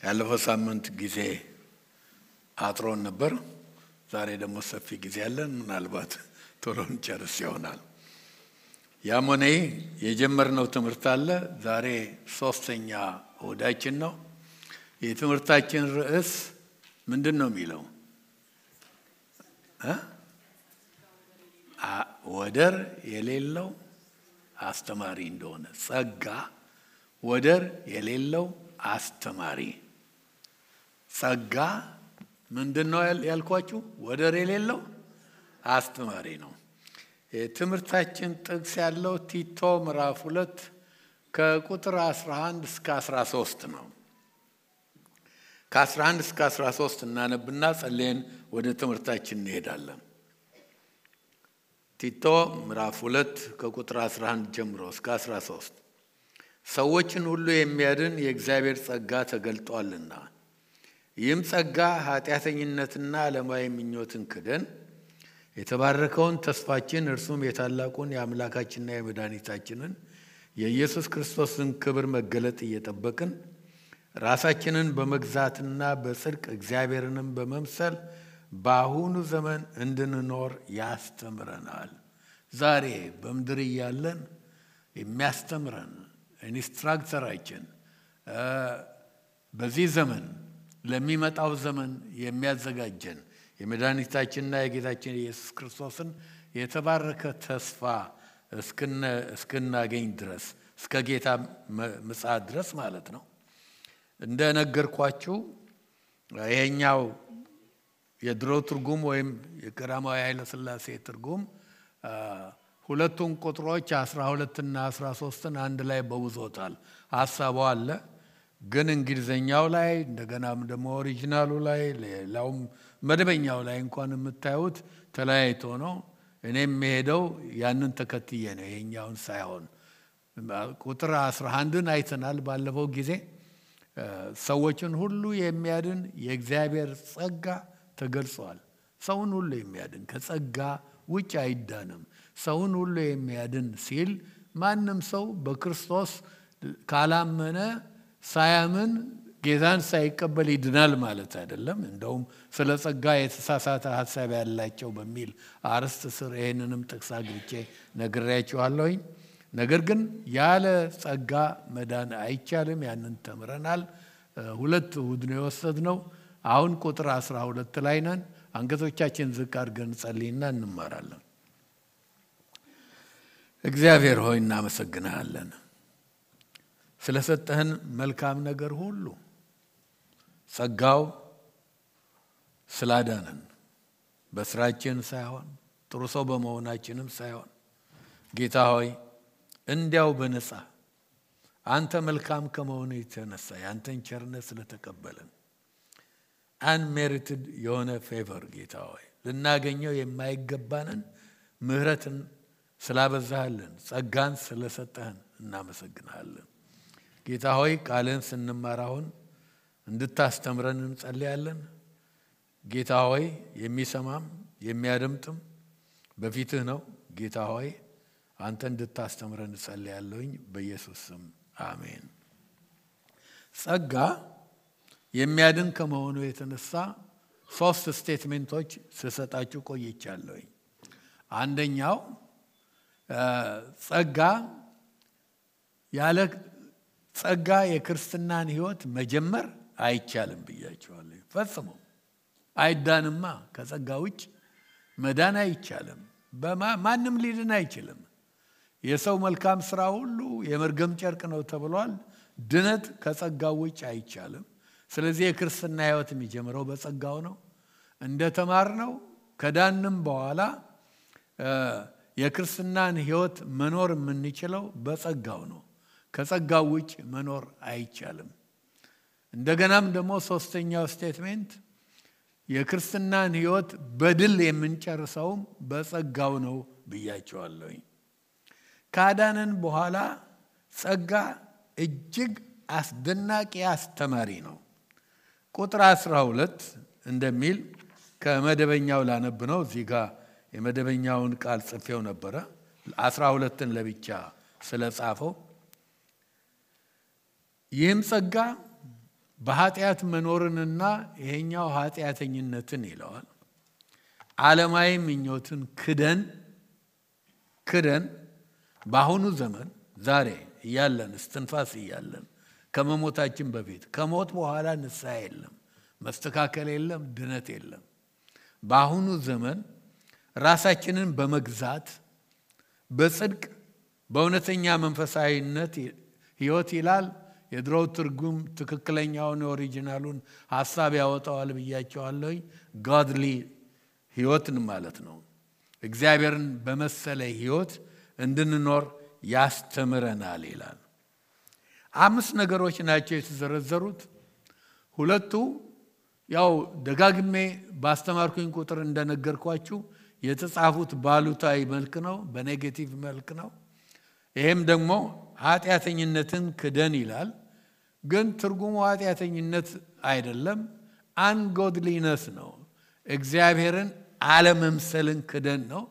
ያለፈው ሳምንት ጊዜ አጥሮን ነበር። ዛሬ ደግሞ ሰፊ ጊዜ ያለን ምናልባት ቶሎ እንጨርስ ይሆናል። ያም ሆነ የጀመርነው ትምህርት አለ። ዛሬ ሶስተኛ እሁዳችን ነው። የትምህርታችን ርዕስ ምንድነው የሚለው? ወደር የሌለው አስተማሪ እንደሆነ። ጸጋ ወደር የሌለው አስተማሪ። ጸጋ ምንድነው ያልኳችሁ? ወደር የሌለው አስተማሪ ነው። የትምህርታችን ጥቅስ ያለው ቲቶ ምዕራፍ 2 ከቁጥር 11 እስከ 13 ነው። ከ11 እስከ 13 እናነብና ጸልየን ወደ ትምህርታችን እንሄዳለን። ቲቶ ምዕራፍ 2 ከቁጥር 11 ጀምሮ እስከ 13 ሰዎችን ሁሉ የሚያድን የእግዚአብሔር ጸጋ ተገልጧልና ይህም ጸጋ ኃጢአተኝነትና ዓለማዊ ምኞትን ክደን የተባረከውን ተስፋችን እርሱም የታላቁን የአምላካችንና የመድኃኒታችንን የኢየሱስ ክርስቶስን ክብር መገለጥ እየጠበቅን ራሳችንን በመግዛትና በጽድቅ እግዚአብሔርንም በመምሰል በአሁኑ ዘመን እንድንኖር ያስተምረናል። ዛሬ በምድር እያለን የሚያስተምረን ኢንስትራክተራችን በዚህ ዘመን ለሚመጣው ዘመን የሚያዘጋጀን የመድኃኒታችንና የጌታችን የኢየሱስ ክርስቶስን የተባረከ ተስፋ እስክናገኝ ድረስ እስከ ጌታ ምጽአት ድረስ ማለት ነው። እንደነገርኳችሁ ይሄኛው የድሮ ትርጉም ወይም የቀዳማዊ ኃይለ ሥላሴ ትርጉም ሁለቱን ቁጥሮች 12 እና 13ን አንድ ላይ በውዞታል። ሐሳቡ አለ። ግን እንግሊዘኛው ላይ እንደገናም ደግሞ ኦሪጂናሉ ላይ ሌላውም መደበኛው ላይ እንኳን የምታዩት ተለያይቶ ነው። እኔም የሄደው ያንን ተከትዬ ነው፣ ይሄኛውን ሳይሆን። ቁጥር 11ን አይተናል ባለፈው ጊዜ። ሰዎችን ሁሉ የሚያድን የእግዚአብሔር ጸጋ ተገልጿል። ሰውን ሁሉ የሚያድን ከጸጋ ውጭ አይዳንም። ሰውን ሁሉ የሚያድን ሲል ማንም ሰው በክርስቶስ ካላመነ ሳያምን ጌታን ሳይቀበል ይድናል ማለት አይደለም። እንደውም ስለ ጸጋ የተሳሳተ ሐሳብ ያላቸው በሚል አርዕስት ስር ይሄንንም ጥቅስ አግኝቼ ነግሬያችኋለሁኝ። ነገር ግን ያለ ጸጋ መዳን አይቻልም። ያንን ተምረናል። 2 እሁድ ነው የወሰድነው። አሁን ቁጥር 12 ላይ ነን። አንገቶቻችን ዝቅ አድርገን ጸልይና እንማራለን። እግዚአብሔር ሆይ እናመሰግንሃለን ስለሰጠህን መልካም ነገር ሁሉ። ጸጋው ስላዳነን በስራችን ሳይሆን ጥሩ ሰው በመሆናችንም ሳይሆን ጌታ ሆይ እንዲያው በነፃ አንተ መልካም ከመሆኑ የተነሳ ያንተን ቸርነት ስለተቀበልን አንሜሪትድ የሆነ ፌቨር ጌታ ሆይ ልናገኘው የማይገባንን ምህረትን ስላበዛህልን ጸጋን ስለሰጠህን እናመሰግናለን። ጌታ ሆይ ቃልን ስንማር አሁን እንድታስተምረን እንጸልያለን። ጌታ ሆይ የሚሰማም የሚያደምጥም በፊትህ ነው። ጌታ ሆይ አንተ እንድታስተምረን እንጸልያለሁኝ በኢየሱስ ስም አሜን። ጸጋ የሚያድን ከመሆኑ የተነሳ 3 ስቴትሜንቶች ስሰጣችሁ ቆይቻለሁኝ። አንደኛው ጸጋ ያለ ጸጋ የክርስትናን ሕይወት መጀመር አይቻልም ብያችኋለሁ። ፈጽሞ አይዳንማ። ከጸጋ ውጭ መዳን አይቻልም። ማንም ሊድን አይችልም። የሰው መልካም ስራ ሁሉ የመርገም ጨርቅ ነው ተብሏል። ድነት ከጸጋው ውጭ አይቻልም። ስለዚህ የክርስትና ሕይወት የሚጀምረው በጸጋው ነው። እንደተማርነው ከዳንም በኋላ የክርስትናን ሕይወት መኖር የምንችለው በጸጋው ነው። ከጸጋው ውጭ መኖር አይቻልም። እንደገናም ደግሞ 3ኛው ስቴትሜንት የክርስትናን ሕይወት በድል የምንጨርሰውም በጸጋው ነው ብያቸዋለሁ። ካዳነን በኋላ ጸጋ እጅግ አስደናቂ አስተማሪ ነው። ቁጥር 12 እንደሚል ከመደበኛው ላነብ ነው። እዚህ ጋር የመደበኛውን ቃል ጽፌው ነበረ 12ን ለብቻ ስለጻፈው። ይህም ጸጋ በኃጢአት መኖርንና ይሄኛው ኃጢአተኝነትን ይለዋል። ዓለማዊ ምኞትን ክደን በአሁኑ ዘመን ዛሬ እያለን እስትንፋስ እያለን ከመሞታችን በፊት ከሞት በኋላ ንስሐ የለም፣ መስተካከል የለም፣ ድነት የለም። በአሁኑ ዘመን ራሳችንን በመግዛት በጽድቅ በእውነተኛ መንፈሳዊነት ሕይወት ይላል። የድሮው ትርጉም ትክክለኛውን ኦሪጂናሉን ሐሳብ ያወጣዋል ብያቸዋለሁ። godly ሕይወትን ማለት ነው። እግዚአብሔርን በመሰለ ሕይወት እንድንኖር ያስተምረናል ይላል። 5 ነገሮች ናቸው የተዘረዘሩት። ሁለቱ ያው ደጋግሜ ባስተማርኩኝ ቁጥር እንደነገርኳችሁ የተጻፉት ባሉታዊ መልክ ነው፣ በኔጌቲቭ መልክ ነው። ይሄም ደግሞ ኃጢአተኝነትን ክደን ይላል። ግን ትርጉሙ ኃጢአተኝነት አይደለም፣ አንጎድሊነስ ነው። እግዚአብሔርን አለመምሰልን ክደን ነው።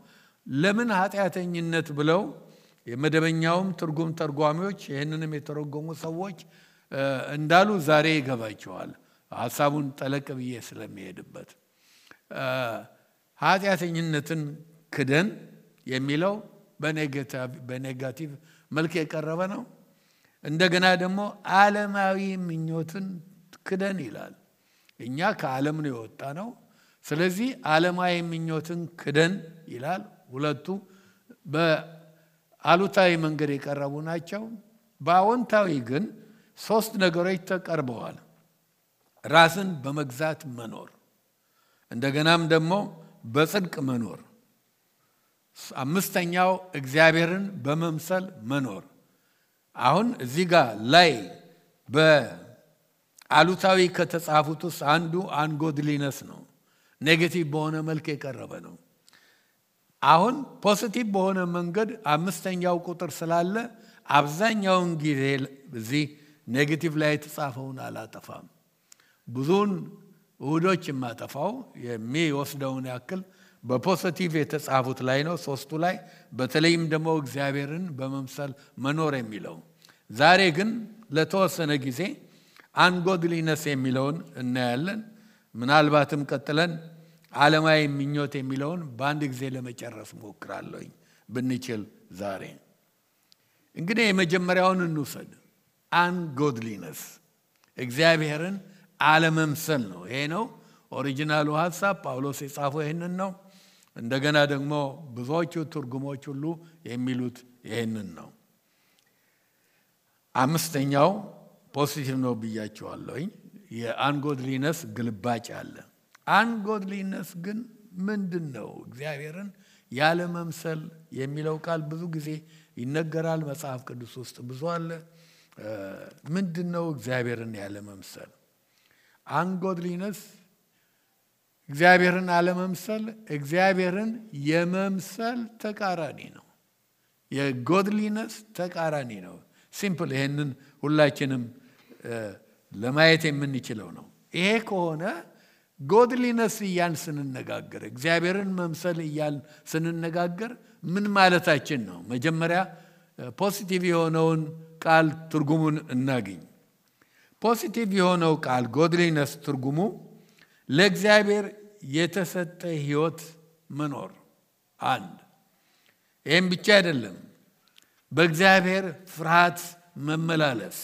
ለምን ኃጢአተኝነት ብለው የመደበኛውም ትርጉም ተርጓሚዎች ይህንንም የተረጎሙ ሰዎች እንዳሉ ዛሬ ይገባቸዋል። ሐሳቡን ጠለቅ ብዬ ስለሚሄድበት ኃጢአተኝነትን ክደን የሚለው በኔጋቲቭ መልክ የቀረበ ነው። እንደገና ደግሞ ዓለማዊ ምኞትን ክደን ይላል። እኛ ከዓለም ነው የወጣ ነው። ስለዚህ ዓለማዊ ምኞትን ክደን ይላል። ሁለቱ በአሉታዊ መንገድ የቀረቡ ናቸው። በአዎንታዊ ግን 3 ነገሮች ተቀርበዋል። ራስን በመግዛት መኖር፣ እንደገናም ደግሞ በጽድቅ መኖር፣ 5ኛው እግዚአብሔርን በመምሰል መኖር። አሁን እዚህ ጋር ላይ በአሉታዊ ከተጻፉት ውስጥ አንዱ አንጎድሊነስ ነው። ኔጌቲቭ በሆነ መልክ የቀረበ ነው። አሁን ፖዚቲቭ በሆነ መንገድ 5ኛው ቁጥር ስላለ አብዛኛውን ጊዜ እዚህ ኔጌቲቭ ላይ የተጻፈውን አላጠፋም። ብዙውን እሁዶች የማጠፋው የሚወስደውን ያክል በፖዚቲቭ የተጻፉት ላይ ነው፣ 3ቱ ላይ በተለይም ደግሞ እግዚአብሔርን በመምሰል መኖር የሚለው። ዛሬ ግን ለተወሰነ ጊዜ አንጎድሊነስ የሚለውን እናያለን። ምናልባትም ቀጥለን ዓለማዊ ምኞት የሚለውን በአንድ ጊዜ ለመጨረስ ሞክራለሁኝ ብንችል። ዛሬ እንግዲህ የመጀመሪያውን እንውሰድ። አንጎድሊነስ እግዚአብሔርን አለመምሰል ነው። ይሄ ነው ኦሪጂናሉ ሐሳብ። ጳውሎስ የጻፈው ይሄንን ነው። እንደገና ደግሞ ብዙዎቹ ትርጉሞች ሁሉ የሚሉት ይሄንን ነው። 5ኛው ፖዚቲቭ ነው ብያቸዋለሁኝ። የአንጎድሊነስ ግልባጭ አለ። አንጎድሊነስ ግን ምንድነው? እግዚአብሔርን ያለ መምሰል የሚለው ቃል ብዙ ጊዜ ይነገራል መጽሐፍ ቅዱስ ውስጥ ብዙ አለ። ምንድነው እግዚአብሔርን ያለ መምሰል? አንጎድሊነስ እግዚአብሔርን አለመምሰል እግዚአብሔርን የመምሰል ተቃራኒ ነው። የጎድሊነስ ተቃራኒ ነው። ሲምፕል። ይሄንን ሁላችንም ለማየት የምንችለው ነው። ይሄ ከሆነ ጎድሊነስ እያን ስንነጋገር እግዚአብሔርን መምሰል እያን ስንነጋገር ምን ማለታችን ነው? መጀመሪያ ፖዚቲቭ የሆነውን ቃል ትርጉሙን እናገኝ። ፖዚቲቭ የሆነው ቃል ጎድሊነስ ትርጉሙ ለእግዚአብሔር የተሰጠ ሕይወት መኖር አንድ። ይህም ብቻ አይደለም፣ በእግዚአብሔር ፍርሃት መመላለስ፣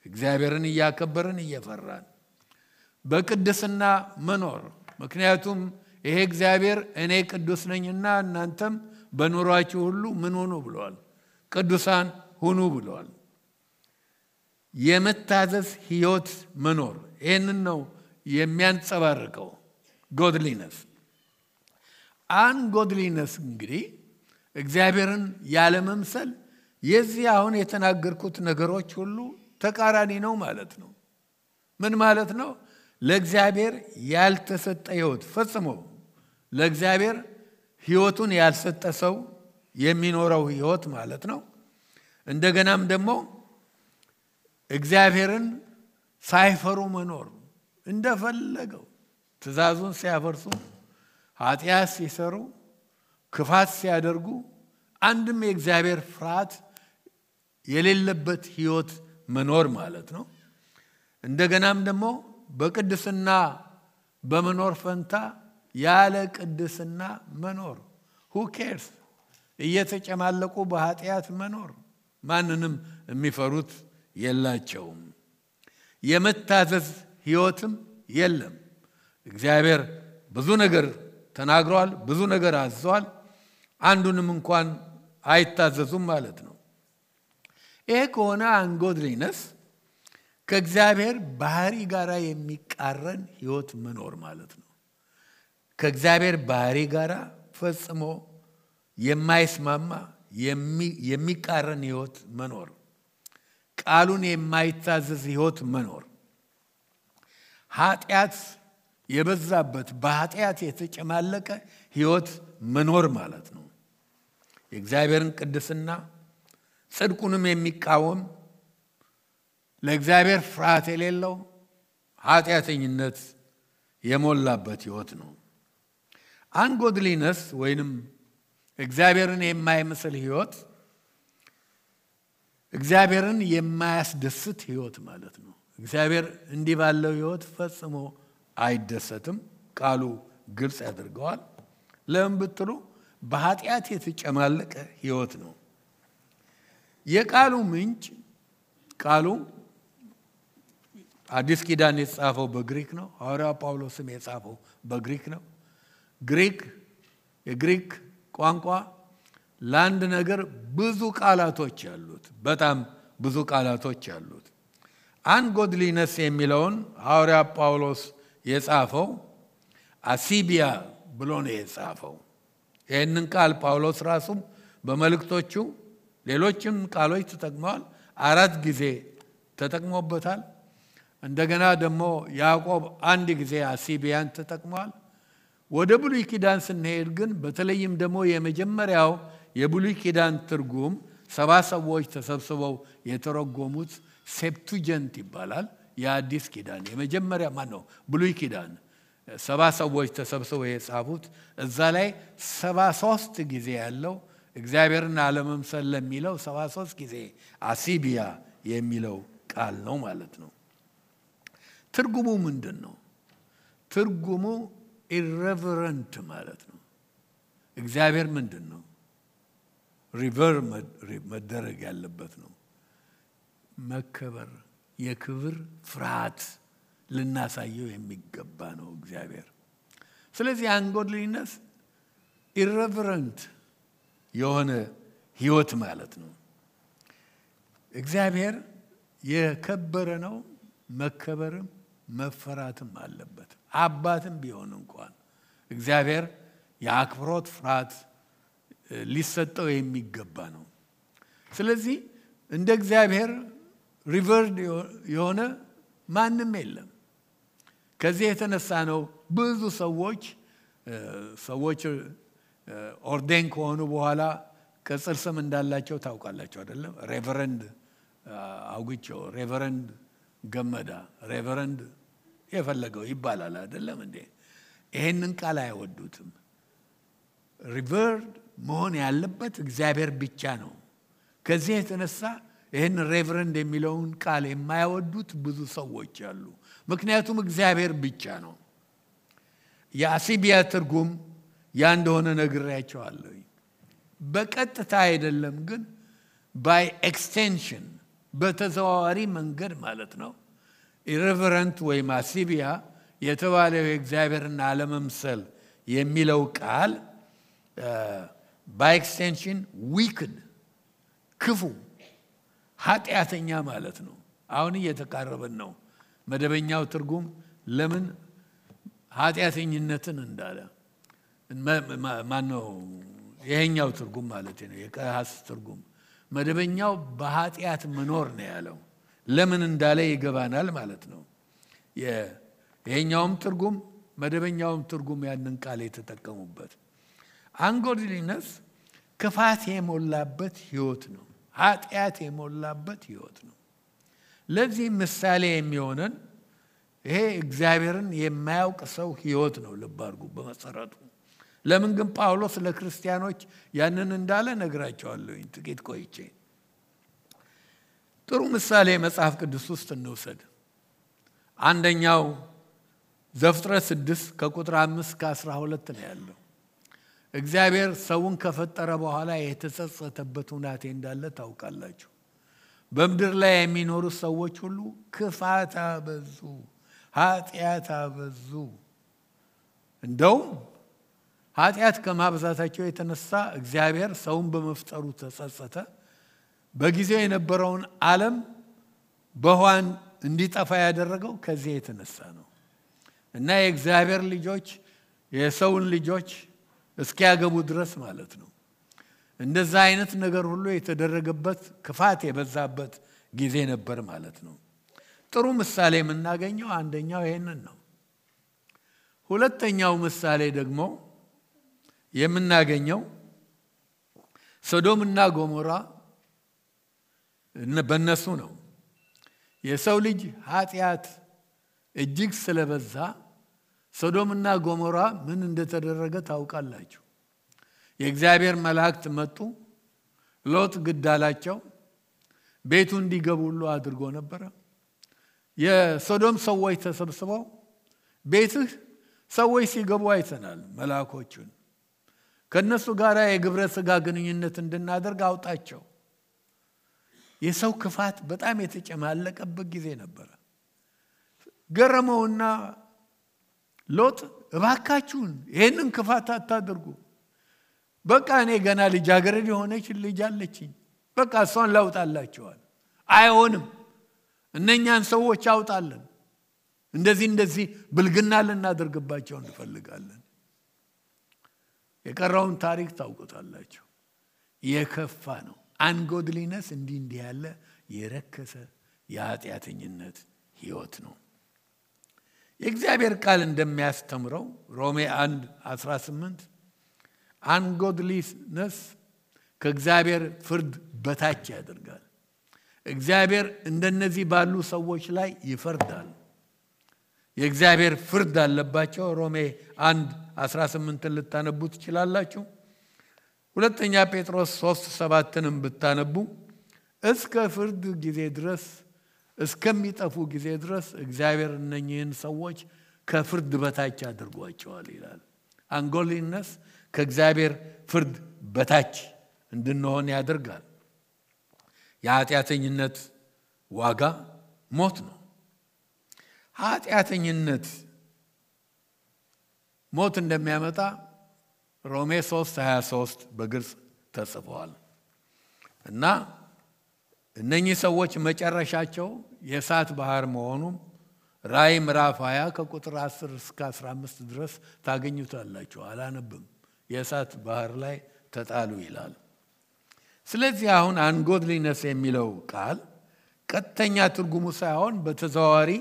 እግዚአብሔርን እያከበርን እየፈራን በቅድስና መኖር። ምክንያቱም ይሄ እግዚአብሔር እኔ ቅዱስ ነኝና እናንተም በኑሯችሁ ሁሉ ምን ሁኑ ብሏል? ቅዱሳን ሁኑ ብሏል። የመታዘዝ ሕይወት መኖር፣ ይህንን ነው የሚያንጸባርቀው ጎድሊነስ። አንጎድሊነስ እንግዲህ እግዚአብሔርን ያለ መምሰል የዚህ አሁን የተናገርኩት ነገሮች ሁሉ ተቃራኒ ነው ማለት ነው። ምን ማለት ነው? ለእግዚአብሔር ያልተሰጠ ሕይወት፣ ፈጽሞ ለእግዚአብሔር ሕይወቱን ያልሰጠ ሰው የሚኖረው ሕይወት ማለት ነው። እንደገናም ደግሞ እግዚአብሔርን ሳይፈሩ መኖር፣ እንደፈለገው ትእዛዙን ሲያፈርሱ፣ ኃጢአት ሲሰሩ፣ ክፋት ሲያደርጉ አንድም የእግዚአብሔር ፍርሃት የሌለበት ሕይወት መኖር ማለት ነው። እንደገናም ደግሞ በቅድስና በመኖር ፈንታ ያለ ቅድስና መኖር who cares እየተጨማለቁ በኃጢአት መኖር ማንንም የሚፈሩት የላቸውም የመታዘዝ ህይወትም የለም እግዚአብሔር ብዙ ነገር ተናግሯል ብዙ ነገር አዟል አንዱንም እንኳን አይታዘዙም ማለት ነው ይሄ ከሆነ አንጎድሊነስ ከእግዚአብሔር ባህሪ ጋር የሚቃረን ህይወት መኖር ማለት ነው ከእግዚአብሔር ባህሪ ጋር ፈጽሞ የማይስማማ የሚቃረን ህይወት መኖር ቃሉን የማይታዘዝ ህይወት መኖር ኃጢአት የበዛበት በኃጢአት የተጨማለቀ ህይወት መኖር ማለት ነው የእግዚአብሔርን ቅድስና ጽድቁንም የሚቃወም ለእግዚአብሔር ፍርሃት የሌለው ኃጢአተኝነት የሞላበት ህይወት ነው አንጎድሊነስ ወይንም እግዚአብሔርን የማይመስል ህይወት እግዚአብሔርን የማያስደስት ህይወት ማለት ነው እግዚአብሔር እንዲህ ባለው ህይወት ፈጽሞ አይደሰትም ቃሉ ግልጽ ያደርገዋል ለምን ብትሉ በኃጢአት የተጨማለቀ ህይወት ነው የቃሉ ምንጭ ቃሉ አዲስ ኪዳን የተጻፈው በግሪክ ነው ሐዋርያው ጳውሎስም የጻፈው በግሪክ ነው የግሪክ ቋንቋ ለአንድ ነገር ብዙ ቃላቶች ያሉት በጣም ብዙ ቃላቶች ያሉት አንጎድሊነስ የሚለውን ሐዋርያው ጳውሎስ የጻፈው አሲቢያ ብሎ ነው የጻፈው ይህንን ቃል ጳውሎስ ራሱ በመልእክቶቹ ሌሎችም ቃሎች ተጠቅመዋል 4 ጊዜ ተጠቅሞበታል እንደገና ደግሞ ያዕቆብ አንድ ጊዜ አሲቢያን ተጠቅመዋል ወደ ብሉይ ኪዳን ስንሄድ ግን በተለይም ደግሞ የመጀመሪያው የብሉይ ኪዳን ትርጉም 70 ሰዎች ተሰብስበው የተረጎሙት ሴፕቱጀንት ይባላል የአዲስ ኪዳን የመጀመሪያ ማን ነው ብሉይ ኪዳን 70 ሰዎች ተሰብስበው የጻፉት እዛ ላይ 73 ጊዜ ያለው እግዚአብሔርን አለመምሰል ለሚለው 73 ጊዜ አሲቢያ የሚለው ቃል ነው ማለት ነው ትርጉሙ ምንድነው ትርጉሙ irreverent ማለት ነው እግዚአብሔር ምንድነው ሪቨር መደረግ ያለበት ነው መከበር የክብር ፍርሃት ልናሳየው የሚገባ ነው እግዚአብሔር ስለዚህ አንጎድሊነስ irreverent የሆነ ህይወት ማለት ነው እግዚአብሔር የከበረ ነው መከበርም መፈራትም አለበት አባትም ቢሆን እንኳን እግዚአብሔር የአክብሮት ፍርሃት ሊሰጠው የሚገባ ነው ስለዚህ እንደ እግዚአብሔር ሪቨርድ የሆነ ማንም የለም ከዚህ የተነሳ ነው ብዙ ሰዎች ኦርዴን ከሆኑ በኋላ ቅጽል ስም እንዳላቸው ታውቃላችሁ አይደለም ሬቨረንድ አውግቸው ሬቨረንድ ገመዳ ሬቨረንድ የፈለገው ይባላል አይደለም እንዴ ይሄንን ቃል አይወዱትም ሪቨርድ መሆን ያለበት እግዚአብሔር ብቻ ነው ከዚህ የተነሳ ይሄን ሬቨረንድ የሚለውን ቃል የማይወዱት ብዙ ሰዎች አሉ ምክንያቱም እግዚአብሔር ብቻ ነው የአሲቢያ ትርጉም ያ እንደሆነ ነግሬያቸዋለሁ በቀጥታ አይደለም ግን by extension በተዘዋዋሪ መንገድ ማለት ነው irreverent ወይ አሲቢያ የተባለው የእግዚአብሔርን አለመምሰል የሚለው ቃል by extension wicked ክፉ ኃጢአተኛ ማለት ነው አሁን እየተቃረበን ነው መደበኛው ትርጉም ለምን ኃጢአተኝነትን እንዳለ ማነው ይሄኛው ትርጉም ማለት ነው የቀሐስ ትርጉም መደበኛው በኃጢአት መኖር ነው ያለው ለምን እንዳለ ይገባናል ማለት ነው ይሄኛውም ትርጉም መደበኛውም ትርጉም ያንን ቃል የተጠቀሙበት አንጎድሊነስ ክፋት የሞላበት ህይወት ነው ኃጢአት የሞላበት ህይወት ነው ለዚህ ምሳሌ የሚሆነን ይሄ እግዚአብሔርን የማያውቅ ሰው ህይወት ነው ልባርጉ በመሰረቱ ለምን ግን ጳውሎስ ለክርስቲያኖች ያንን እንዳለ ነግራቸዋለሁ ጥቂት ቆይቼ ጥሩ ምሳሌ መጽሐፍ ቅዱስ ውስጥ እንውሰድ አንደኛው ዘፍጥረት 6 ከቁጥር 5 እስከ 12 ነው ያለው። እግዚአብሔር ሰውን ከፈጠረ በኋላ የተጸጸተበት ሁናቴ እንዳለ ታውቃላችሁ። በምድር ላይ የሚኖሩ ሰዎች ሁሉ ክፋት አበዙ፣ ኃጢአት አበዙ። እንደውም ኃጢአት ከማብዛታቸው የተነሳ እግዚአብሔር ሰውን በመፍጠሩ ተጸጸተ። በጊዜው የነበረውን ዓለም በውሃን እንዲጠፋ ያደረገው ከዚህ የተነሳ ነው። እና የእግዚአብሔር ልጆች የሰውን ልጆች እስኪያገቡ ድረስ ማለት ነው እንደዛ አይነት ነገር ሁሉ የተደረገበት ክፋት የበዛበት ጊዜ ነበር ማለት ነው። ጥሩ ምሳሌ የምናገኘው አንደኛው ይሄንን ነው። ሁለተኛው ምሳሌ ደግሞ የምናገኘው ሶዶምና ጎሞራ በእነሱ ነው። የሰው ልጅ ኃጢአት እጅግ ስለበዛ ሶዶምና ጎሞራ ምን እንደተደረገ ታውቃላችሁ። የእግዚአብሔር መላእክት መጡ፣ ሎጥ ግድ አላቸው፣ ቤቱ እንዲገቡ ሁሉ አድርጎ ነበር። የሶዶም ሰዎች ተሰብስበው ቤትህ ሰዎች ሲገቡ አይተናል፣ መላእክቶቹን ከነሱ ጋር የግብረ ሥጋ ግንኙነት እንድናደርግ አውጣቸው። የሰው ክፋት በጣም የተጨማለቀበት ጊዜ ነበር። ገረመውና ሎጥ እባካችሁን ይሄንን ክፋት አታድርጉ፣ በቃ እኔ ገና ልጃገረድ የሆነች ልጅ አለችኝ፣ በቃ እሷን ላውጣላችኋል። አይሆንም፣ እነኛን ሰዎች አውጣለን፣ እንደዚህ ብልግና ልናደርግባቸው እንፈልጋለን። የቀረውን ታሪክ ታውቁታላችሁ። የከፋ ነው። አንጎድሊነስ እንዲህ ያለ የረከሰ የኃጢአተኝነት ህይወት ነው። የእግዚአብሔር ቃል እንደሚያስተምረው ሮሜ 1:18 አንጎድሊነስ ከእግዚአብሔር ፍርድ በታች ያደርጋል። እግዚአብሔር እንደነዚህ ባሉ ሰዎች ላይ ይፈርዳል። የእግዚአብሔር ፍርድ አለባቸው። ሮሜ 1:18 ልታነቡ ትችላላችሁ። ሁለተኛ ጴጥሮስ 3:7ንም ብታነቡ እስከ ፍርድ ጊዜ ድረስ እስከሚጠፉ ጊዜ ድረስ እግዚአብሔር እነኚህን ሰዎች ከፍርድ በታች አድርጓቸዋል ይላል። አንጎድሊነስ ከእግዚአብሔር ፍርድ በታች እንድንሆን ያደርጋል። የኃጢአተኝነት ዋጋ ሞት ነው። ኃጢአተኝነት ሞት እንደሚያመጣ ሮሜ 3:23 በግልጽ ተጽፏል። እና እነኚህ ሰዎች መጨረሻቸው የእሳት ባህር መሆኑ ራእይ ምዕራፍ 20 ከቁጥር 10 እስከ 15 ድረስ ታገኙታላችሁ። አላነብም። የእሳት ባህር ላይ ተጣሉ ይላል። ስለዚህ አሁን አንጎድሊነስ የሚለው ቃል ቀጥተኛ ትርጉሙ ሳይሆን በተዘዋዋሪ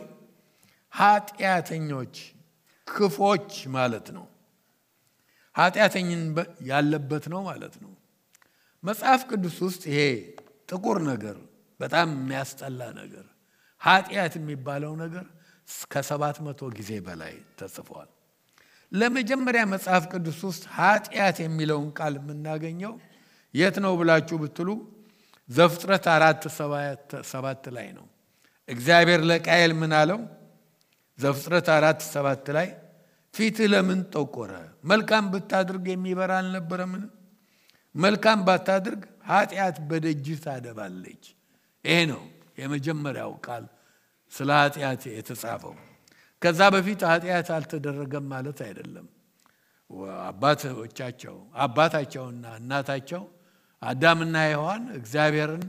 ኃጢአተኞች፣ ክፎች ማለት ነው። ኃጢአተኝን ያለበት ነው ማለት ነው። መጽሐፍ ቅዱስ ውስጥ ይሄ ጥቁር ነገር በጣም የሚያስጠላ ነገር ኃጢአት የሚባለው ነገር ከ700 ጊዜ በላይ ተጽፏል። ለመጀመሪያ መጽሐፍ ቅዱስ ውስጥ ኃጢአት የሚለውን ቃል የምናገኘው የት ነው ብላችሁ ብትሉ ዘፍጥረት 4:7 ላይ ነው። እግዚአብሔር ለቃየል ምን አለው? ዘፍጥረት 4:7 ላይ ፊትህ ለምን ጠቆረ? መልካም ብታድርግ የሚበራ አልነበረምን? መልካም ባታድርግ ኃጢአት በደጅህ ታደባለች። ይሄ ነው የመጀመሪያው ቃል ስለ ኃጢአት የተጻፈው። ከዛ በፊት ኃጢአት አልተደረገም ማለት አይደለም። አባታቸውና እናታቸው አዳምና ሔዋን እግዚአብሔርን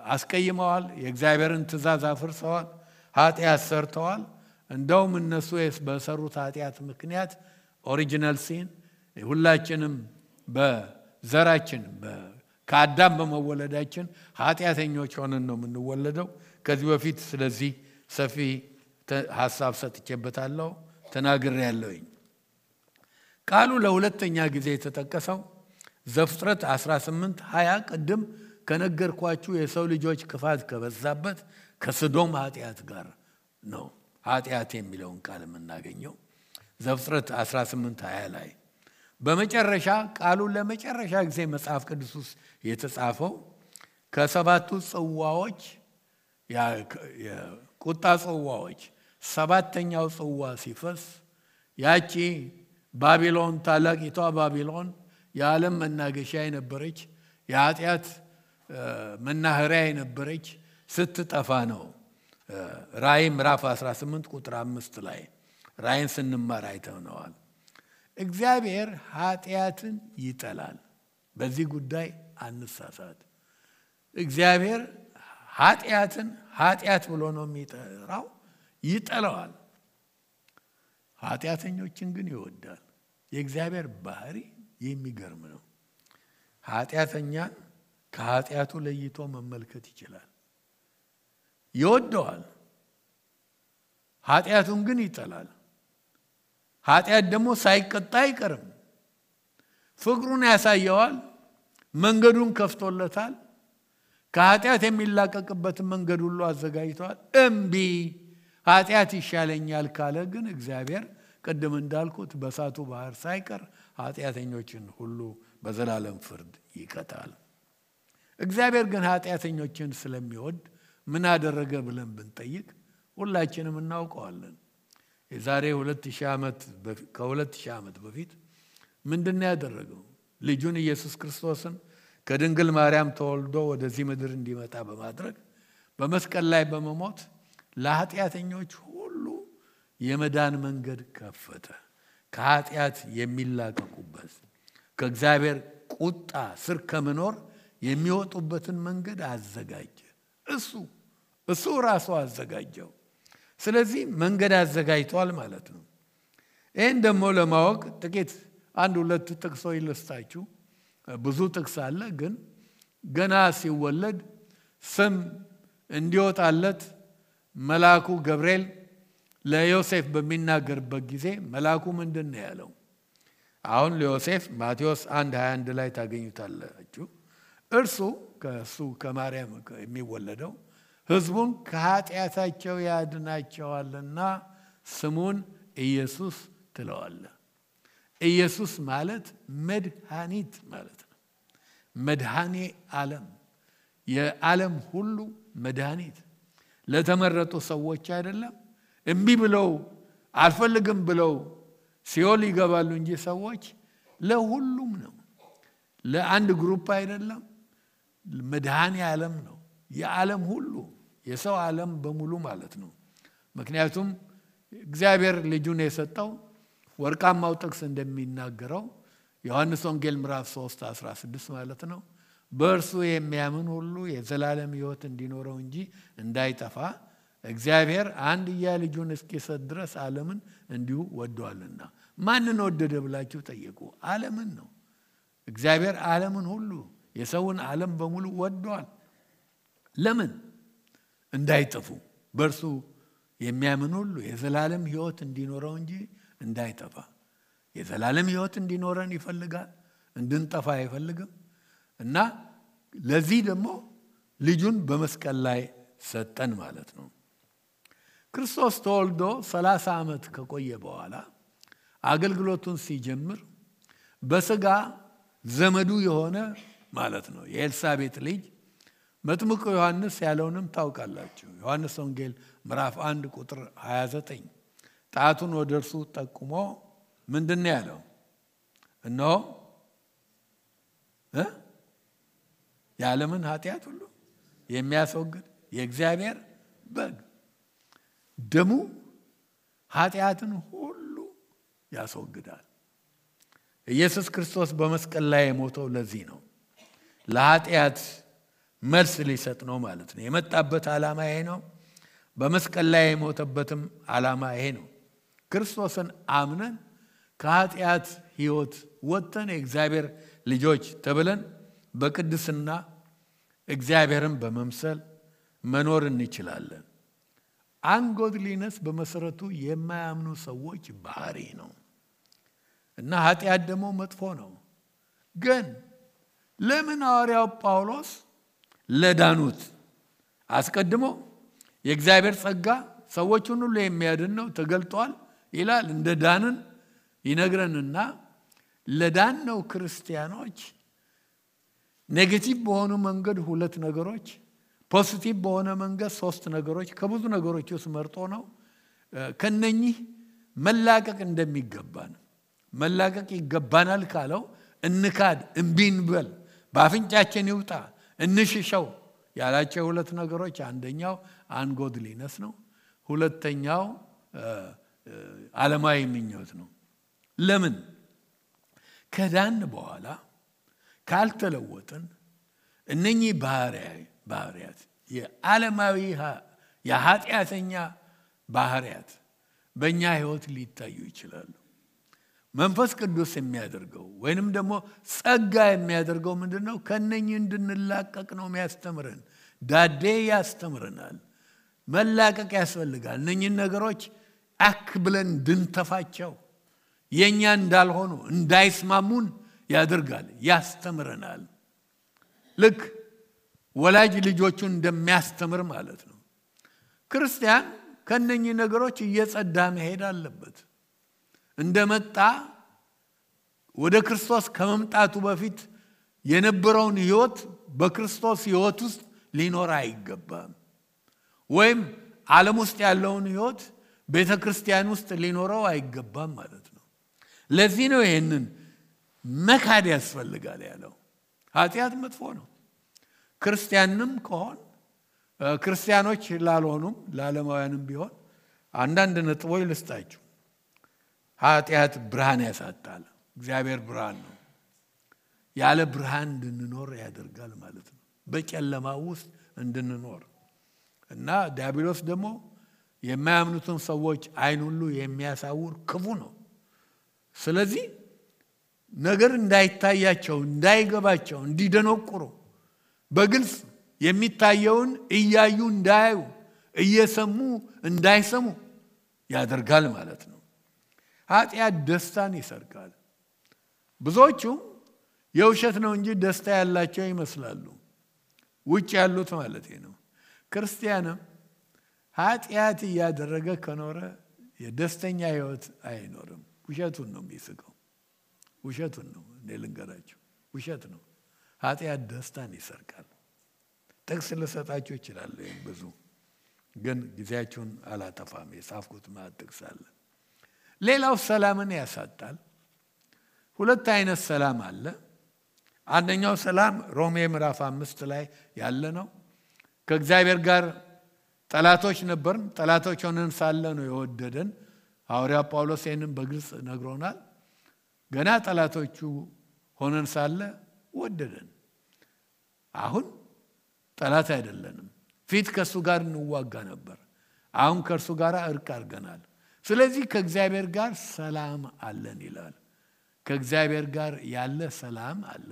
አስቀይመዋል፣ የእግዚአብሔርን ትእዛዝ አፍርሰዋል፣ ኃጢአት ሰርተዋል። እንደውም እነሱ በሰሩት ኃጢአት ምክንያት ኦሪጂናል ሲን ሁላችንም በዘራችን ከአዳም በመወለዳችን ኃጢአተኞች ሆነን ነው የምንወለደው። ከዚህ በፊት ስለዚህ ሰፊ ሐሳብ ሰጥቼበታለሁ፣ ተናግሬያለሁኝ። ቃሉ ለሁለተኛ ጊዜ የተጠቀሰው ዘፍጥረት 18:20 ቅድም ከነገርኳችሁ የሰው ልጆች ክፋት ከበዛበት ከሰዶም ኃጢአት ጋር ነው ኃጢአት የሚለውን ቃል የምናገኘው ዘፍጥረት 18:20 ላይ። በመጨረሻ ቃሉ ለመጨረሻ ጊዜ መጽሐፍ ቅዱስ ውስጥ የተጻፈው ከሰባቱ ጽዋዎች ቁጣ ጽዋዎች ሰባተኛው ጽዋ ሲፈስ ያቺ ባቢሎን ታላቂቷ ባቢሎን የዓለም መናገሻ የነበረች የኃጢአት መናኸሪያ የነበረች ስትጠፋ ነው። ራእይ ምዕራፍ 18 ቁጥር 5 ላይ ራእይን ስንማር አይተነዋል። እግዚአብሔር ኃጢአትን ይጠላል። በዚህ ጉዳይ አንሳሳት። እግዚአብሔር ኃጢአትን ኃጢአት ብሎ ነው የሚጠራው፣ ይጠላዋል። ኃጢአተኞችን ግን ይወዳል። የእግዚአብሔር ባህሪ የሚገርም ነው። ኃጢአተኛን ከኃጢአቱ ለይቶ መመልከት ይችላል፣ ይወደዋል። ኃጢአቱን ግን ይጠላል። ኃጢአት ደግሞ ሳይቀጣ አይቀርም። ፍቅሩን ያሳየዋል፣ መንገዱን ከፍቶለታል። ከኃጢአት የሚላቀቅበትን መንገድ ሁሉ አዘጋጅቷል። እምቢ ኃጢአት ይሻለኛል ካለ ግን እግዚአብሔር ቅድም እንዳልኩት በእሳቱ ባህር ሳይቀር ኃጢአተኞችን ሁሉ በዘላለም ፍርድ ይቀጣል። እግዚአብሔር ግን ኃጢአተኞችን ስለሚወድ ምን አደረገ ብለን ብንጠይቅ ሁላችንም እናውቀዋለን። የዛሬ 2000 ዓመት በፊት ምንድነው ያደረገው? ልጁን ኢየሱስ ክርስቶስን ከድንግል ማርያም ተወልዶ ወደዚህ ምድር እንዲመጣ በማድረግ በመስቀል ላይ በመሞት ለኃጢአተኞች ሁሉ የመዳን መንገድ ከፈተ። ከኃጢአት የሚላቀቁበት ከእግዚአብሔር ቁጣ ስር ከመኖር የሚወጡበትን መንገድ አዘጋጀ። እሱ ራሱ አዘጋጀው። ስለዚህ መንገድ አዘጋጅቷል ማለት ነው። ይህን ደግሞ ለማወቅ ጥቂት አንድ ሁለት ጥቅሶች ልስጣችሁ። ብዙ ጥቅስ አለ፣ ግን ገና ሲወለድ ስም እንዲወጣለት መልአኩ ገብርኤል ለዮሴፍ በሚናገርበት ጊዜ መልአኩ ምንድን ነው ያለው? አሁን ለዮሴፍ ማቴዎስ 1:21 ላይ ታገኙታላችሁ። እርሱ ከማርያም የሚወለደው ሕዝቡን ከኃጢአታቸው ያድናቸዋልና ስሙን ኢየሱስ ትለዋለህ። ኢየሱስ ማለት መድኃኒት ማለት ነው። መድኃኔ ዓለም፣ የዓለም ሁሉ መድኃኒት። ለተመረጡ ሰዎች አይደለም። እምቢ ብለው አልፈልግም ብለው ሲኦል ይገባሉ እንጂ ሰዎች ለሁሉም ነው። ለአንድ ግሩፕ አይደለም። መድኃኔ ዓለም ነው። የዓለም ሁሉ የሰው ዓለም በሙሉ ማለት ነው። ምክንያቱም እግዚአብሔር ልጁን የሰጠው ወርቃማው ጥቅስ እንደሚናገረው ዮሐንስ ወንጌል ምዕራፍ 3:16 ማለት ነው፣ በእርሱ የሚያምን ሁሉ የዘላለም ሕይወት እንዲኖረው እንጂ እንዳይጠፋ እግዚአብሔር አንድያ ልጁን እስኪሰጥ ድረስ ዓለምን እንዲሁ ወዷልና። ማንን ወደደ ብላችሁ ጠይቁ። ዓለምን ነው። እግዚአብሔር ዓለምን ሁሉ የሰውን ዓለም በሙሉ ወዷል። ለምን? እንዳይጠፉ፣ በእርሱ የሚያምን ሁሉ የዘላለም ሕይወት እንዲኖረው እንጂ እንዳይጠፋ። የዘላለም ሕይወት እንዲኖረን ይፈልጋል፣ እንድንጠፋ አይፈልግም። እና ለዚህ ደግሞ ልጁን በመስቀል ላይ ሰጠን ማለት ነው። ክርስቶስ ተወልዶ 30 ዓመት ከቆየ በኋላ አገልግሎቱን ሲጀምር በስጋ ዘመዱ የሆነ ማለት ነው የኤልሳቤጥ ልጅ መጥምቁ ዮሐንስ ያለውንም ታውቃላችሁ። ዮሐንስ ወንጌል ምዕራፍ 1 ቁጥር 29 ጣቱን ወደ እርሱ ጠቁሞ ምንድነው ያለው? እነሆ የዓለምን ኃጢአት ሁሉ የሚያስወግድ የእግዚአብሔር በግ፣ ደሙ ኃጢአትን ሁሉ ያስወግዳል። ኢየሱስ ክርስቶስ በመስቀል ላይ የሞተው ለዚህ ነው። ለኃጢአት መልስ ሊሰጥ ነው ማለት ነው። የመጣበት ዓላማ ይሄ ነው። በመስቀል ላይ የሞተበትም ዓላማ ይሄ ነው። ክርስቶስን አምነን ከኃጢአት ሕይወት ወጥተን የእግዚአብሔር ልጆች ተብለን በቅድስና እግዚአብሔርን በመምሰል መኖር እንችላለን። አንጎድሊነስ በመሰረቱ የማያምኑ ሰዎች ባህሪ ነው እና ኃጢአት ደግሞ መጥፎ ነው። ግን ለምን ሐዋርያው ጳውሎስ ለዳኑት አስቀድሞ የእግዚአብሔር ጸጋ ሰዎችን ሁሉ የሚያድን ነው ተገልጧል ይላል፣ እንደ ዳንን ይነግረንና ለዳነው ክርስቲያኖች ኔጌቲቭ በሆኑ መንገድ ሁለት ነገሮች ፖዚቲቭ በሆነ መንገድ ሶስት ነገሮች ከብዙ ነገሮች ውስጥ መርጦ ነው ከነኚህ መላቀቅ እንደሚገባን መላቀቅ ይገባናል ካለው እንካድ እንቢንበል ባፍንጫችን ይውጣ እንሽሸው ያላቸው ሁለት ነገሮች አንደኛው አንጎድሊነስ ነው ሁለተኛው ዓለማዊ ምኞት ነው ለምን ከዳን በኋላ ካልተለወጥን እነኚህ ባህሪያት የዓለማዊ የኃጢአተኛ ባህሪያት በእኛ ህይወት ሊታዩ ይችላሉ መንፈስ ቅዱስ የሚያደርገው ወይንም ደግሞ ጸጋ የሚያደርገው ምንድነው ከነኚህ እንድንላቀቅ ነው የሚያስተምረን ዳዴ ያስተምረናል መላቀቅ ያስፈልጋል እነኚህ ነገሮች አክ ብለን እንድንተፋቸው የኛ እንዳልሆኑ እንዳይስማሙን ያደርጋል ያስተምረናል ልክ ወላጅ ልጆቹን እንደሚያስተምር ማለት ነው ክርስቲያን ከነኚህ ነገሮች እየጸዳ መሄድ አለበት እንደመጣ ወደ ክርስቶስ ከመምጣቱ በፊት የነበረውን ህይወት በክርስቶስ ህይወት ውስጥ ሊኖር አይገባም ወይም ዓለም ውስጥ ያለውን ህይወት ቤተክርስቲያን ውስጥ ሊኖረው አይገባም ማለት ነው ለዚህ ነው ይሄንን መካድ ያስፈልጋል ያለው ኃጢአት መጥፎ ነው ክርስቲያንም ከሆን ክርስቲያኖች ላልሆኑም ለዓለማውያንም ቢሆን አንዳንድ ነጥቦች ልስጣችሁ ኃጢአት ብርሃን ያሳጣል እግዚአብሔር ብርሃን ነው ያለ ብርሃን እንድንኖር ያደርጋል ማለት ነው በጨለማ ውስጥ እንድንኖር እና ዲያብሎስ ደግሞ የማያምኑትን ሰዎች አይን ሁሉ የሚያሳውር ክፉ ነው ስለዚህ ነገር እንዳይታያቸው እንዳይገባቸው እንዲደነቁሩ በግልጽ የሚታየውን እያዩ እንዳያዩ እየሰሙ እንዳይሰሙ ያደርጋል ማለት ነው ኃጢአት ደስታን ይሰርቃል ብዙዎቹ የውሸት ነው እንጂ ደስታ ያላቸው ይመስላሉ ውጭ ያሉት ማለት ነው ክርስቲያንም ኃጢአት ያደረገ ከኖረ የደስተኛ ህይወት አይኖርም ውሸቱን ነው የሚስቀው ውሸቱን ነው ለልንገራችሁ ውሸት ነው ኃጢአት ደስታን ይሰርቃል ጥቅስ ልሰጣችሁ ይችላል ብዙ ግን ጊዜያችሁን አላጠፋም የጻፍኩት ጥቅስ አለ ሌላው ሰላምን ያሳጣል ሁለት አይነት ሰላም አለ አንደኛው ሰላም ሮሜ ምዕራፍ 5 ላይ ያለ ነው ከእግዚአብሔር ጋር ጠላቶች ነበርን ጠላቶች ሆነን ሳለ ነው የወደደን ሐዋርያ ጳውሎስ ይህንን በግልጽ ነግሮናል ገና ጠላቶቹ ሆነን ሳለ ወደደን አሁን ጠላት አይደለንም ፊት ከሱ ጋር እንዋጋ ነበር አሁን ከሱ ጋር እርቅ አድርገናል ስለዚህ ከእግዚአብሔር ጋር ሰላም አለን ይላል ከእግዚአብሔር ጋር ያለ ሰላም አለ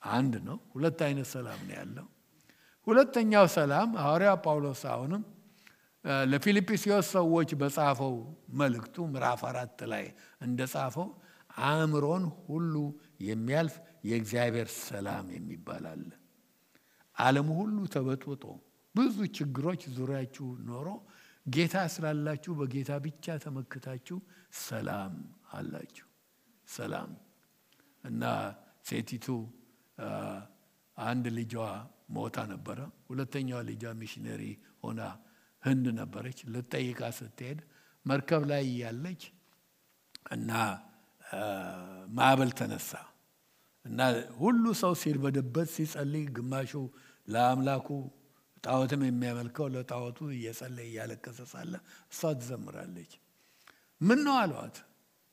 አንድ ነው ሁለት አይነት ሰላም ነው ያለው ሁለተኛው ሰላም ሐዋርያ ጳውሎስ አሁንም ለፊልጵስዩስ ሰዎች በጻፈው መልእክቱ ምዕራፍ 4 ላይ እንደጻፈው አእምሮን ሁሉ የሚያልፍ የእግዚአብሔር ሰላም የሚባል አለ ዓለም ሁሉ ተበጥብጦ ብዙ ችግሮች ዙሪያችሁ ኖሮ ጌታ ስላላችሁ በጌታ ብቻ ተመክታችሁ ሰላም አላችሁ ሰላም እና ሴቲቱ አንድ ልጇ ሞታ ነበር ሁለተኛው ልጇ ሚሽነሪ ሆና ህንድ ነበረች ለጠይቃ ስትሄድ መርከብ ላይ ያለች እና ማዕበል ተነሳ እና ሁሉ ሰው ሲርበደበት ሲጸልይ ግማሹ ለአምላኩ ጣዖትም የሚያመልከው ለጣዖቱ እየጸለየ ያለቀሰ ሳለ እሷ ትዘምራለች ምን ነው አሏት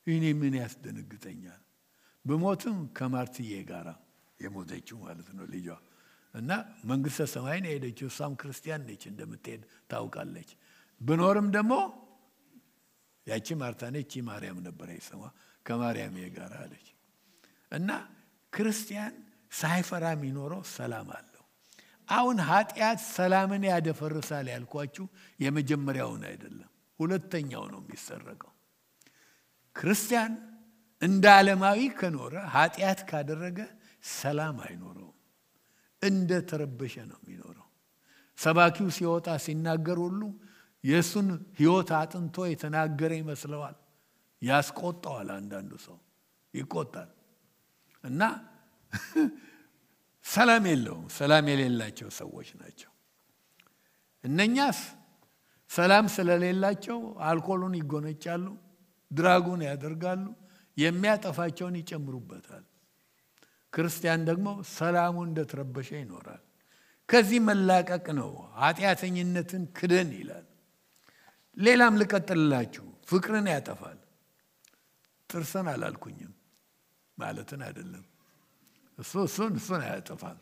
እኔ ምን ያስደነግጠኛል በሞትም ከማርትዬ ጋራ የሞተችው ማለት ነው ልጇ እና መንግስተ ሰማይን ሄደችው እሷም ክርስቲያን ነች እንደምትሄድ ታውቃለች ብኖርም ደግሞ ያቺ ማርታ ነች ማርያም ነበረች ስሟ ከማርያም ጋር አለች እና ክርስቲያን ሳይፈራ የሚኖረው ሰላም አለው አሁን ኃጢአት ሰላምን ያደፈርሳል ያልኳችሁ የመጀመሪያውን አይደለም ሁለተኛው ነው የሚሰረቀው ክርስቲያን እንደ ዓለማዊ ከኖረ ኃጢአት ካደረገ ሰላም አይኖረው እንደ ተረበሸ ነው የሚኖረው ሰባኪው ሲወጣ ሲናገር ሁሉ የሱን ህይወት አጥንቶ የተናገረ ይመስለዋል ያስቆጣዋል አንዳንዱ ሰው ይቆጣል እና ሰላም የለውም ሰላም የሌላቸው ሰዎች ናቸው እነኛስ ሰላም ስለሌላቸው አልኮሉን ይጎነጫሉ፣ ድራጉን ያደርጋሉ፣ የሚያጠፋቸውን ይጨምሩበታል። ክርስቲያን ደግሞ ሰላሙ እንደተረበሸ ይኖራል። ከዚህ መላቀቅ ነው ኃጢአተኝነትን ክደን ይላል። ሌላም ልቀጥልላችሁ። ፍቅርን ያጠፋል። ጥርስን አላልኩኝም ማለትን አይደለም። እሱን ያጠፋል።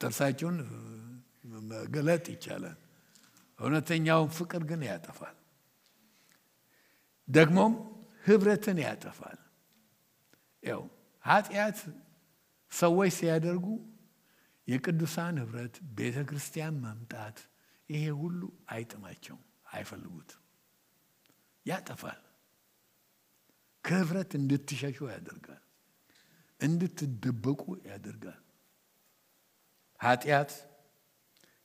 ጥርሳችሁን መገለጥ ይቻላል። እውነተኛውን ፍቅር ግን ያጠፋል። ደግሞም ህብረትን ያጠፋል። ያው ኃጢአት ሰዎች ሲያደርጉ የቅዱሳን ህብረት፣ ቤተክርስቲያን መምጣት፣ ይሄ ሁሉ አይጥማቸውም፣ አይፈልጉትም። ያጠፋል። ከህብረት እንድትሸሹ ያደርጋል፣ እንድትደበቁ ያደርጋል። ኃጢአት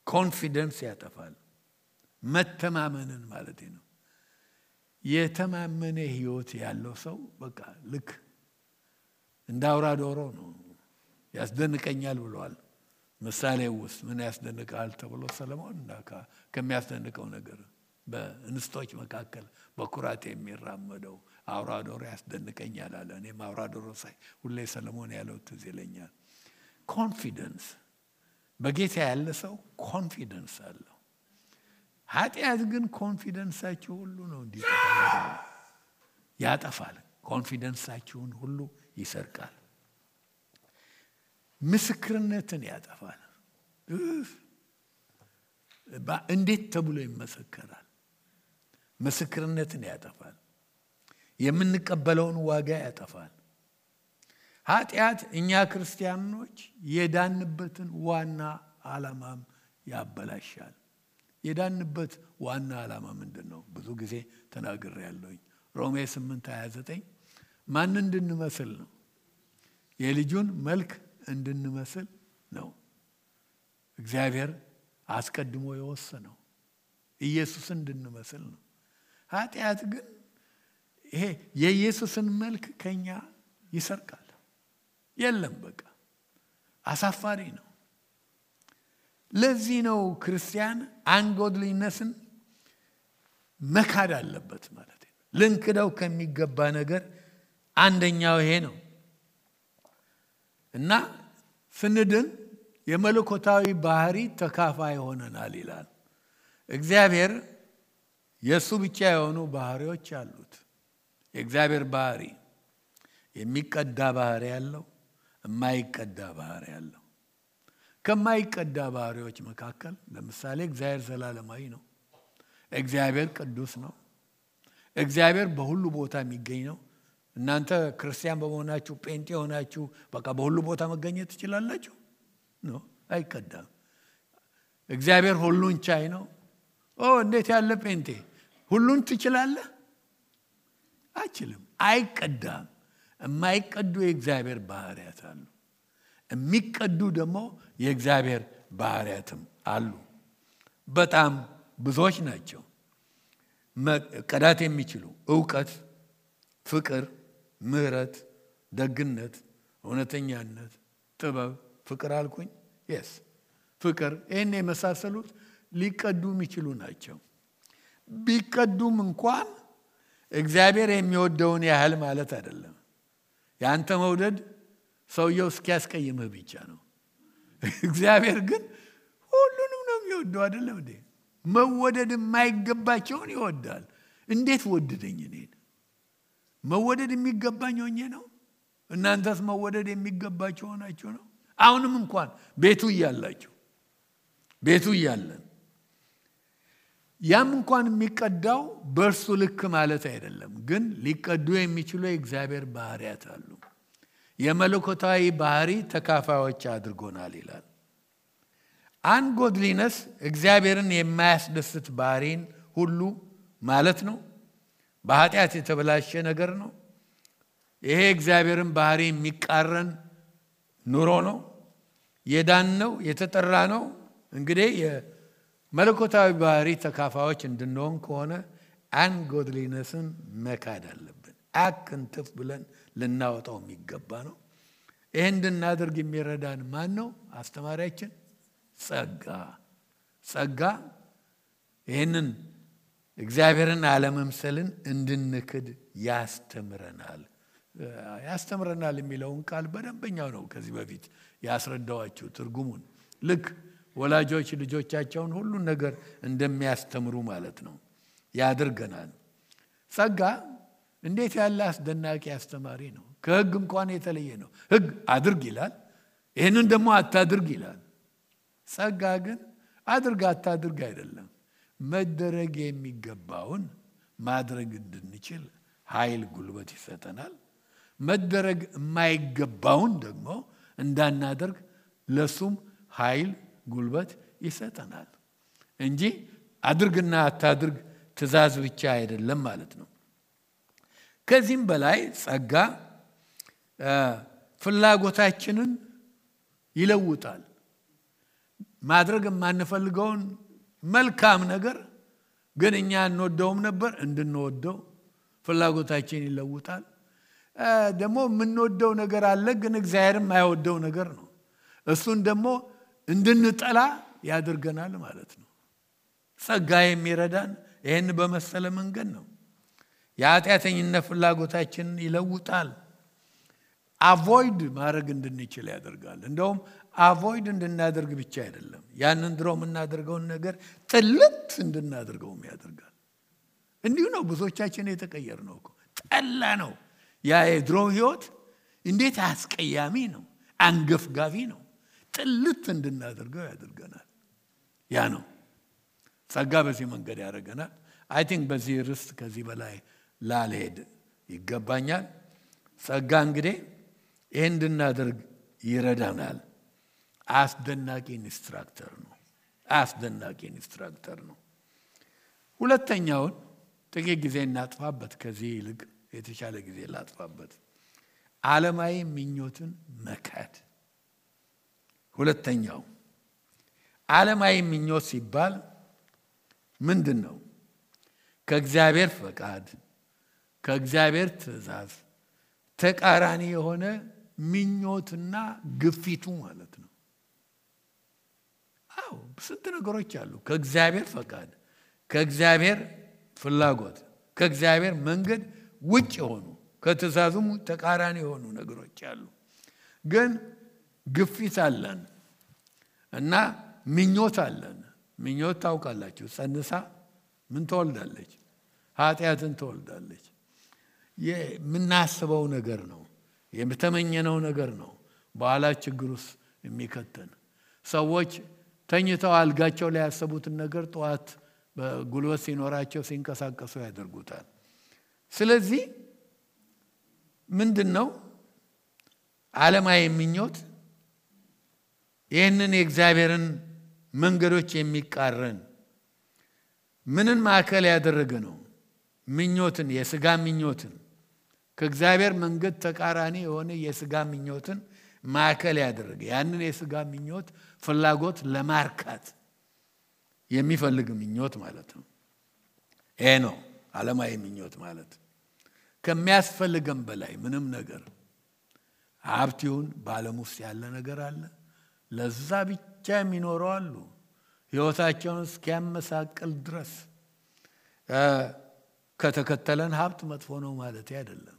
ኮንፊደንስ ያጠፋል። መተማመንን ማለት ነው። የተማመነ ህይወት ያለው ሰው በቃ ልክ እንደ አውራ ዶሮ ነው። ያስደንቀኛል ብሏል ምሳሌ ውስጥ። ምን ያስደንቃል ተብሎ ሰለሞን ከሚያስደንቀው ነገር በእንስቶች መካከል በኩራት የሚራመደው አውራ ዶሮ ያስደንቀኛል አለ። እኔም አውራ ዶሮ ሳይ ሁሌ ሰለሞን ያለው ትዝ ይለኛል። ኮንፊደንስ፣ በጌታ ያለ ሰው ኮንፊደንስ አለው። ኃጢአት ግን ኮንፊደንሳችሁ ሁሉ ነው እንዲጠፋ ያጠፋል። ኮንፊደንሳችሁን ሁሉ ይሰርቃል። ምስክርነትን ያጠፋል። እንዴት ተብሎ ይመሰከራል? ምስክርነትን ያጠፋል። የምንቀበለውን ዋጋ ያጠፋል። ኃጢአት እኛ ክርስቲያኖች የዳንበትን ዋና ዓላማም ያበላሻል። የዳንበት ዋና ዓላማ ምንድነው? ብዙ ጊዜ ተናግሬያለሁኝ። ሮሜ 8:29 ማን እንድንመስል ነው? የልጁን መልክ እንድንመስል ነው እግዚአብሔር አስቀድሞ የወሰነው። ኢየሱስን እንድንመስል ነው። ኃጢአት ግን ይሄ የኢየሱስን መልክ ከኛ ይሰርቃል። የለም በቃ አሳፋሪ ነው። ለዚህ ነው ክርስቲያን አንጎድሊነስን መካድ አለበት ማለት ነው። ልንክደው ከሚገባ ነገር አንደኛው ይሄ ነው እና ስንድን የመለኮታዊ ባህሪ ተካፋይ ሆነናል ይላል። እግዚአብሔር የሱ ብቻ የሆኑ ባህሪዎች አሉት። የእግዚአብሔር ባህሪ የሚቀዳ ባህሪ ያለው፣ የማይቀዳ ባህሪ ያለው። ከማይቀዳ ባህሪዎች መካከል ለምሳሌ እግዚአብሔር ዘላለማዊ ነው። እግዚአብሔር ቅዱስ ነው። እግዚአብሔር በሁሉ ቦታ የሚገኝ ነው። እናንተ ክርስቲያን በመሆናችሁ ጴንጤ ሆናችሁ በቃ በሁሉ ቦታ መገኘት ትችላላችሁ? ነው፣ አይቀዳም። እግዚአብሔር ሁሉን ቻይ ነው። እንዴት ያለ ጴንጤ! ሁሉን ትችላለህ? አይችልም፣ አይቀዳም። የማይቀዱ የእግዚአብሔር ባህሪያት አሉ። የሚቀዱ ደግሞ የእግዚአብሔር ባህሪያትም አሉ። በጣም ብዙዎች ናቸው። መቀዳት የሚችሉ ዕውቀት፣ ፍቅር፣ ምህረት፣ ደግነት፣ እውነተኛነት፣ ጥበብ፣ ፍቅር አልኩኝ። ፍቅር፣ ይህን የመሳሰሉት ሊቀዱ የሚችሉ ናቸው። ቢቀዱም እንኳን እግዚአብሔር የሚወደውን ያህል ማለት አይደለም። ያንተ መውደድ ሰውየው እስኪያስቀይምህ ብቻ ነው። እግዚአብሔር ግን ሁሉንም ነው የሚወደው አይደለም እንዴ? መወደድ የማይገባቸውን ይወዳል። እንዴት ወደደኝ እኔን? መወደድ የሚገባኝ ሆኜ ነው? እናንተስ መወደድ የሚገባቸው ሆናችሁ ነው? አሁንም እንኳን ቤቱ እያለን ያም እንኳን የሚቀዳው በእርሱ ልክ ማለት አይደለም። ግን ሊቀዱ የሚችሉ የእግዚአብሔር ባህሪያት አሉ። የመለኮታዊ ባህሪ ተካፋዮች አድርጎናል ይላል። አንጎድሊነስ እግዚአብሔርን የማያስደስት ባህሪን ሁሉ ማለት ነው። በኃጢአት የተበላሸ ነገር ነው። ይሄ እግዚአብሔርን ባህሪ የሚቃረን ኑሮ ነው። የዳን ነው፣ የተጠራ ነው። እንግዲህ የመለኮታዊ ባህሪ ተካፋዮች እንድንሆን ከሆነ አንጎድሊነስን መካድ አለብን። አክንትፍ ብለን ልናወጣው የሚገባ ነው። ይሄን እንድናደርግ የሚረዳን ማን ነው? አስተማሪያችን ጸጋ። ጸጋ ይህንን እግዚአብሔርን አለመምሰልን እንድንክድ ያስተምረናል። ያስተምረናል የሚለውን ቃል በደንበኛው ነው ከዚህ በፊት ያስረዳዋችሁ ትርጉሙን። ልክ ወላጆች ልጆቻቸውን ሁሉን ነገር እንደሚያስተምሩ ማለት ነው ያደርገናል። ጸጋ እንዴት ያለ አስደናቂ አስተማሪ ነው። ከሕግ እንኳን የተለየ ነው። ሕግ አድርግ ይላል፣ ይህንን ደግሞ አታድርግ ይላል። ጸጋ ግን አድርግ አታድርግ አይደለም፣ መደረግ የሚገባውን ማድረግ እንድንችል ኃይል ጉልበት ይሰጠናል። መደረግ የማይገባውን ደግሞ እንዳናደርግ ለሱም ኃይል ጉልበት ይሰጠናል እንጂ አድርግና አታድርግ ትእዛዝ ብቻ አይደለም ማለት ነው። ከዚህም በላይ ጸጋ ፍላጎታችንን ይለውጣል። ማድረግ የማንፈልገውን መልካም ነገር ግን እኛ እንወደውም ነበር እንድንወደው ፍላጎታችን ይለውጣል። ደግሞ የምንወደው ነገር አለ ግን እግዚአብሔር የማይወደው ነገር ነው። እሱን ደግሞ እንድንጠላ ያደርገናል ማለት ነው። ጸጋ የሚረዳን ይህን በመሰለ መንገድ ነው። የኃጢአተኝነት ፍላጎታችንን ይለውጣል። አቮይድ ማድረግ እንድንችል ያደርጋል። እንደውም አቮይድ እንድናደርግ ብቻ አይደለም፣ ያንን ድሮ የምናደርገውን ነገር ጥልት እንድናደርገውም ያደርጋል። እንዲሁ ነው ብዙዎቻችን የተቀየር ነው እኮ። ጠላ ነው ያ የድሮ ህይወት እንዴት አስቀያሚ ነው፣ አንገፍጋፊ ነው። ጥልት እንድናደርገው ያደርገናል። ያ ነው ጸጋ በዚህ መንገድ ያደርገናል። አይ ቲንክ በዚህ ርዕስ ከዚህ በላይ ላልሄድ ይገባኛል። ጸጋ እንግዲህ ይህን እንድናደርግ ይረዳናል። አስደናቂ ኢንስትራክተር ነው። አስደናቂ ኢንስትራክተር ነው። ሁለተኛውን ጥቂት ጊዜ እናጥፋበት፣ ከዚህ ይልቅ የተሻለ ጊዜ ላጥፋበት። ዓለማዊ ምኞትን መካድ። ሁለተኛው ዓለማዊ ምኞት ሲባል ምንድን ነው? ከእግዚአብሔር ፈቃድ ከእግዚአብሔር ትእዛዝ ተቃራኒ የሆነ ምኞትና ግፊቱ ማለት ነው። አዎ ስንት ነገሮች አሉ። ከእግዚአብሔር ፈቃድ ከእግዚአብሔር ፍላጎት ከእግዚአብሔር መንገድ ውጭ የሆኑ ከትእዛዙም ተቃራኒ የሆኑ ነገሮች አሉ። ግን ግፊት አለን እና ምኞት አለን። ምኞት ታውቃላችሁ፣ ጸንሳ ምን ትወልዳለች? ኃጢአትን ትወልዳለች። የምናስበው ነገር ነው፣ የተመኘነው ነገር ነው በኋላ ችግር ውስጥ የሚከተን። ሰዎች ተኝተው አልጋቸው ላይ ያሰቡትን ነገር ጠዋት በጉልበት ሲኖራቸው ሲንቀሳቀሱ ያደርጉታል። ስለዚህ ምንድነው ዓለማዊ ምኞት? ይህንን የእግዚአብሔርን መንገዶች የሚቃረን ምንን ማዕከል ያደረገ ነው? ምኞትን፣ የሥጋ ምኞትን፣ ከእግዚአብሔር መንገድ ተቃራኒ የሆነ የሥጋ ምኞትን ማዕከል ያደረገ ያንን የሥጋ ምኞት ፍላጎት ለማርካት የሚፈልግ ምኞት ማለት ነው። ይሄ ነው ዓለማዊ ምኞት ማለት። ከሚያስፈልገን በላይ ምንም ነገር ሀብት ይሁን በዓለም ውስጥ ያለ ነገር አለ፣ ለዛ ብቻ የሚኖሩ አሉ፣ ሕይወታቸውን እስኪያመሳቅል ድረስ። ከተከተለን ሀብት መጥፎ ነው ማለት አይደለም።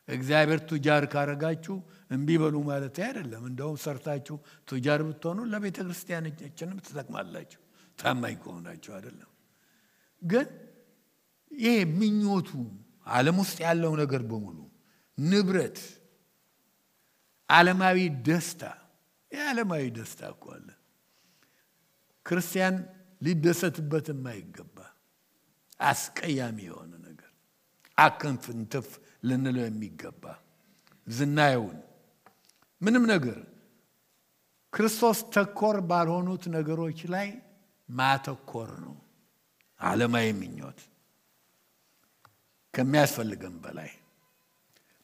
እግዚአብሔር ቱጃር ካረጋችሁ እምቢ በሉ ማለት አይደለም። እንደውም ሰርታችሁ ቱጃር ብትሆኑ ለቤተ ክርስቲያናችንም ትጠቅማላችሁ ታማኝ ከሆናችሁ አይደለም። ግን ይሄ ምኞቱ ዓለም ውስጥ ያለው ነገር በሙሉ ንብረት፣ ዓለማዊ ደስታ፣ የዓለማዊ ደስታ እኮ አለ ክርስቲያን ሊደሰትበት የማይገባ አስቀያሚ የሆነ ነገር፣ አከንፍንትፍ ልንለው የሚገባ ዝናየውን ምንም ነገር ክርስቶስ ተኮር ባልሆኑት ነገሮች ላይ ማተኮር ነው ዓለማዊ ምኞት። ከሚያስፈልገን በላይ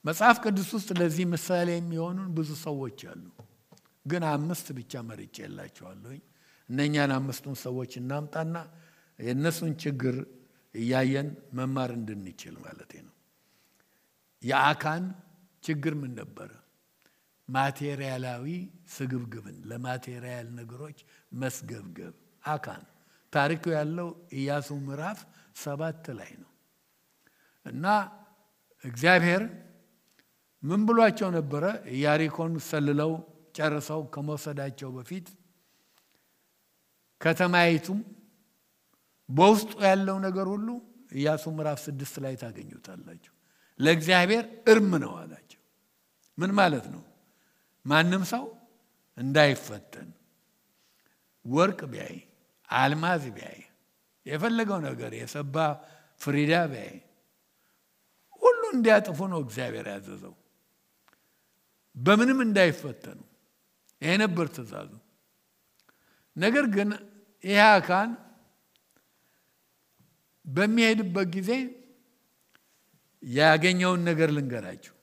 መጽሐፍ ቅዱስ ውስጥ ለዚህ ምሳሌ የሚሆኑን ብዙ ሰዎች አሉ። ግን 5 ብቻ መርጬላችኋለሁ። እነኛን 5ቱን ሰዎች እናምጣና የእነሱን ችግር እያየን መማር እንድንችል ማለት ነው። የአካን ችግር ምን ነበረ? ማቴሪያላዊ ስግብግብን፣ ለማቴሪያል ነገሮች መስገብገብ። አካን ታሪኩ ያለው ኢያሱ ምዕራፍ 7 ላይ ነው። እና እግዚአብሔር ምን ብሏቸው ነበረ? ኢያሪኮን ሰልለው ጨርሰው ከመውሰዳቸው በፊት ከተማይቱም በውስጡ ያለው ነገር ሁሉ ኢያሱ ምዕራፍ 6 ላይ ታገኙታላችሁ። ለእግዚአብሔር እርም ነው አላቸው። ምን ማለት ነው? ማንም ሰው እንዳይፈተን ወርቅ ቢያይ አልማዝ ቢያይ የፈለገው ነገር የሰባ ፍሪዳ ቢያይ ሁሉ እንዲያጥፉ ነው እግዚአብሔር ያዘዘው። በምንም እንዳይፈተኑ ይሄ ነበር ትእዛዙ። ነገር ግን ይሄ አካን በሚሄድበት ጊዜ ያገኘውን ነገር ልንገራችሁ።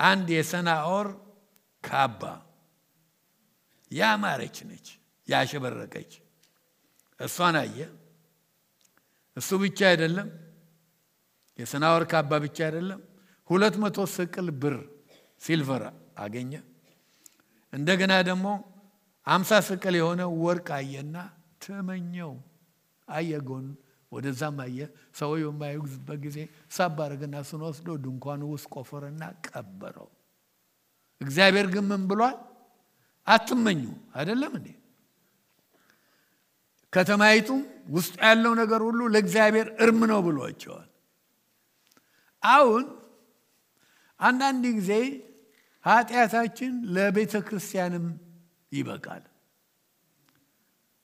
አንድ የሰናዖር ካባ ያማረች ነች፣ ያሸበረቀች እሷን አየ። እሱ ብቻ አይደለም፣ የሰናዖር ካባ ብቻ አይደለም፣ 200 ስቅል ብር ሲልቨር አገኘ። እንደገና ደግሞ 50 ስቅል የሆነ ወርቅ አየና ተመኘው። አየጎን ወደዛም አየ። ሰውየው የማይጉዝበት ጊዜ ሳብ አረገና እሱን ወስዶ ድንኳኑ ውስጥ ቆፈረና ቀበረው። እግዚአብሔር ግን ምን ብሏል? አትመኙ አይደለም እንዴ? ከተማይቱም ውስጥ ያለው ነገር ሁሉ ለእግዚአብሔር እርም ነው ብሏቸዋል። አሁን አንዳንድ ጊዜ ኃጢአታችን ለቤተ ክርስቲያንም ይበቃል፣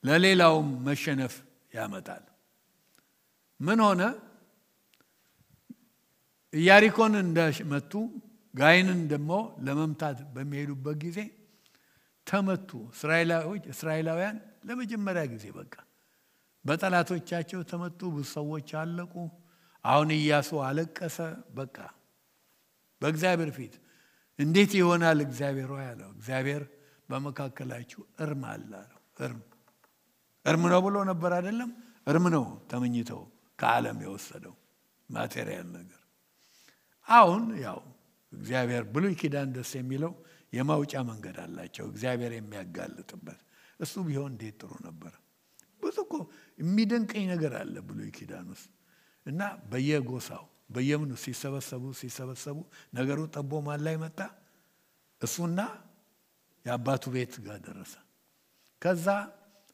ለሌላውም መሸነፍ ያመጣል። ምን ሆነ? ኢያሪኮን እንደመቱ ጋይንን ደግሞ ለመምታት በሚሄዱበት ጊዜ ተመቱ። እስራኤላውያን ለመጀመሪያ ጊዜ በቃ በጠላቶቻቸው ተመቱ። ብዙ ሰዎች አለቁ። አሁን ኢያሱ አለቀሰ። በቃ በእግዚአብሔር ፊት እንዴት ይሆናል እግዚአብሔር ሆይ አለው። እግዚአብሔር በመካከላችሁ እርም አለ አለው። እርም ነው ብሎ ነበር አይደለም? እርም ነው ተመኝተው ከዓለም የወሰደው ማቴሪያል ነገር። አሁን ያው እግዚአብሔር ብሉይ ኪዳን ደስ የሚለው የማውጫ መንገድ አላቸው እግዚአብሔር የሚያጋልጥበት። እሱ ቢሆን እንዴት ጥሩ ነበር። ብዙ እኮ የሚደንቀኝ ነገር አለ ብሉይ ኪዳን ውስጥ። እና በየጎሳው በየምኑ ሲሰበሰቡ ነገሩ ጠቦ ማን ላይ መጣ? እሱና የአባቱ ቤት ጋር ደረሰ። ከዛ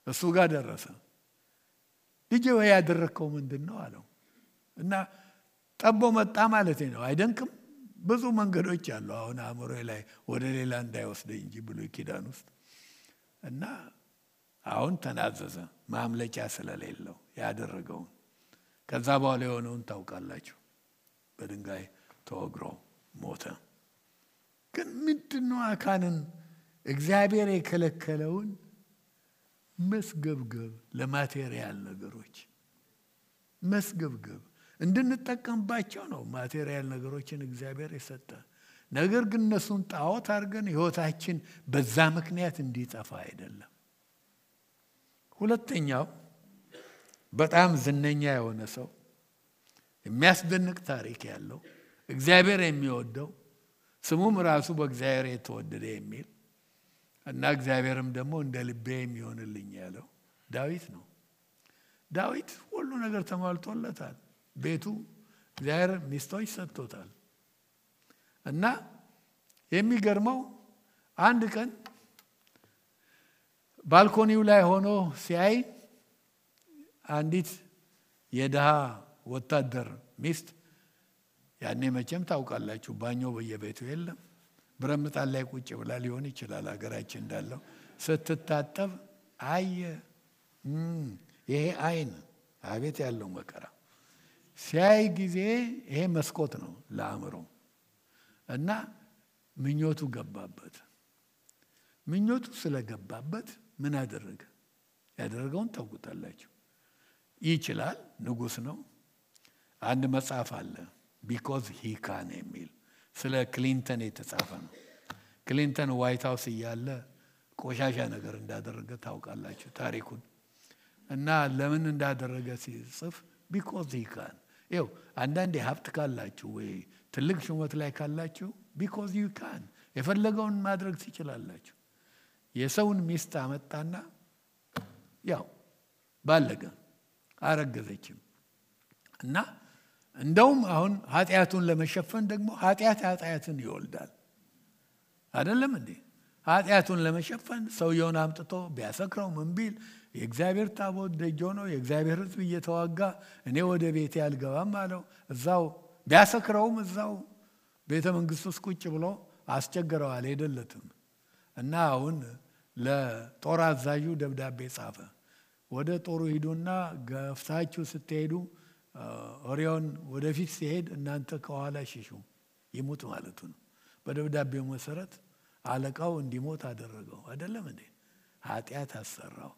እሱ ጋር ደረሰ። ልጄ ወይ ያደረከው ምንድነው አለው። እና ጠቦ መጣ ማለት ነው። አይደንቅም? ብዙ መንገዶች አሉ። አሁን አእምሮዬ ላይ ወደ ሌላ እንዳይወስደኝ እንጂ ብሉይ ኪዳን ውስጥ እና አሁን ተናዘዘ ማምለጫ ስለሌለው ያደረገውን። ከዛ በኋላ የሆነውን ታውቃላችሁ። በድንጋይ ተወግሮ ሞተ። ግን ምንድነው አካንን እግዚአብሔር የከለከለውን መስገብገብ ለማቴሪያል ነገሮች መስገብገብ እንድንጠቀምባቸው ነው። ማቴሪያል ነገሮችን እግዚአብሔር የሰጠ ነገር ግን እነሱን ጣዖት አድርገን ህይወታችን በዛ ምክንያት እንዲጠፋ አይደለም። ሁለተኛው በጣም ዝነኛ የሆነ ሰው የሚያስደንቅ ታሪክ ያለው እግዚአብሔር የሚወደው ስሙም ራሱ በእግዚአብሔር የተወደደ የሚል እና እግዚአብሔርም ደግሞ እንደ ልቤ የሚሆንልኝ ያለው ዳዊት ነው። ዳዊት ሁሉ ነገር ተሟልቶለታል። ቤቱ እግዚአብሔር ሚስቶች ሰጥቶታል። እና የሚገርመው አንድ ቀን ባልኮኒው ላይ ሆኖ ሲያይ አንዲት የድሃ ወታደር ሚስት ያኔ መቼም ታውቃላችሁ ባኞ በየቤቱ የለም። ብረምጣን ላይ ቁጭ ብላ ሊሆን ይችላል ሀገራችን እንዳለው ስትታጠብ አየ። ይሄ አይን አቤት ያለው መከራ ሲያይ ጊዜ ይሄ መስኮት ነው ለአእምሮ እና ምኞቱ ገባበት። ምኞቱ ስለገባበት ምን አደረገ? ያደረገውን ታውቁታላችሁ። ይችላል፣ ንጉስ ነው። አንድ መጽሐፍ አለ because he can የሚል ስለ ክሊንተን የተጻፈ ነው። ክሊንተን ዋይት ሃውስ እያለ ቆሻሻ ነገር እንዳደረገ ታውቃላችሁ ታሪኩን። እና ለምን እንዳደረገ ሲጽፍ because he can ይው አንዳንዴ ሀብት ካላችሁ ወይ ትልቅ ሹመት ላይ ካላችሁ because you can የፈለገውን ማድረግ ትችላላችሁ። የሰውን ሚስት አመጣና ያው ባለገ አረገዘችም። እና እንደውም አሁን ኃጢአቱን ለመሸፈን ደግሞ ኃጢአትን ይወልዳል አይደለም እንዴ? ኃጢአቱን ለመሸፈን ሰውየውን አምጥቶ ቢያሰክረው ምን ቢል የእግዚአብሔር ታቦት ደጅ ሆኖ የእግዚአብሔር ሕዝብ እየተዋጋ እኔ ወደ ቤቴ አልገባም አለው። እዛው ቢያሰክረውም እዛው ቤተ መንግስት ውስጥ ቁጭ ብሎ አስቸገረው፣ አልሄደለትም። እና አሁን ለጦር አዛዡ ደብዳቤ ጻፈ። ወደ ጦሩ ሂዱና ገፍታችሁ ስትሄዱ ኦሪዮን ወደፊት ሲሄድ እናንተ ከኋላ ሽሹ፣ ይሙት ማለቱ ነው። በደብዳቤው መሰረት አለቃው እንዲሞት አደረገው አይደለም እንዴ? ኃጢአት አሰራው።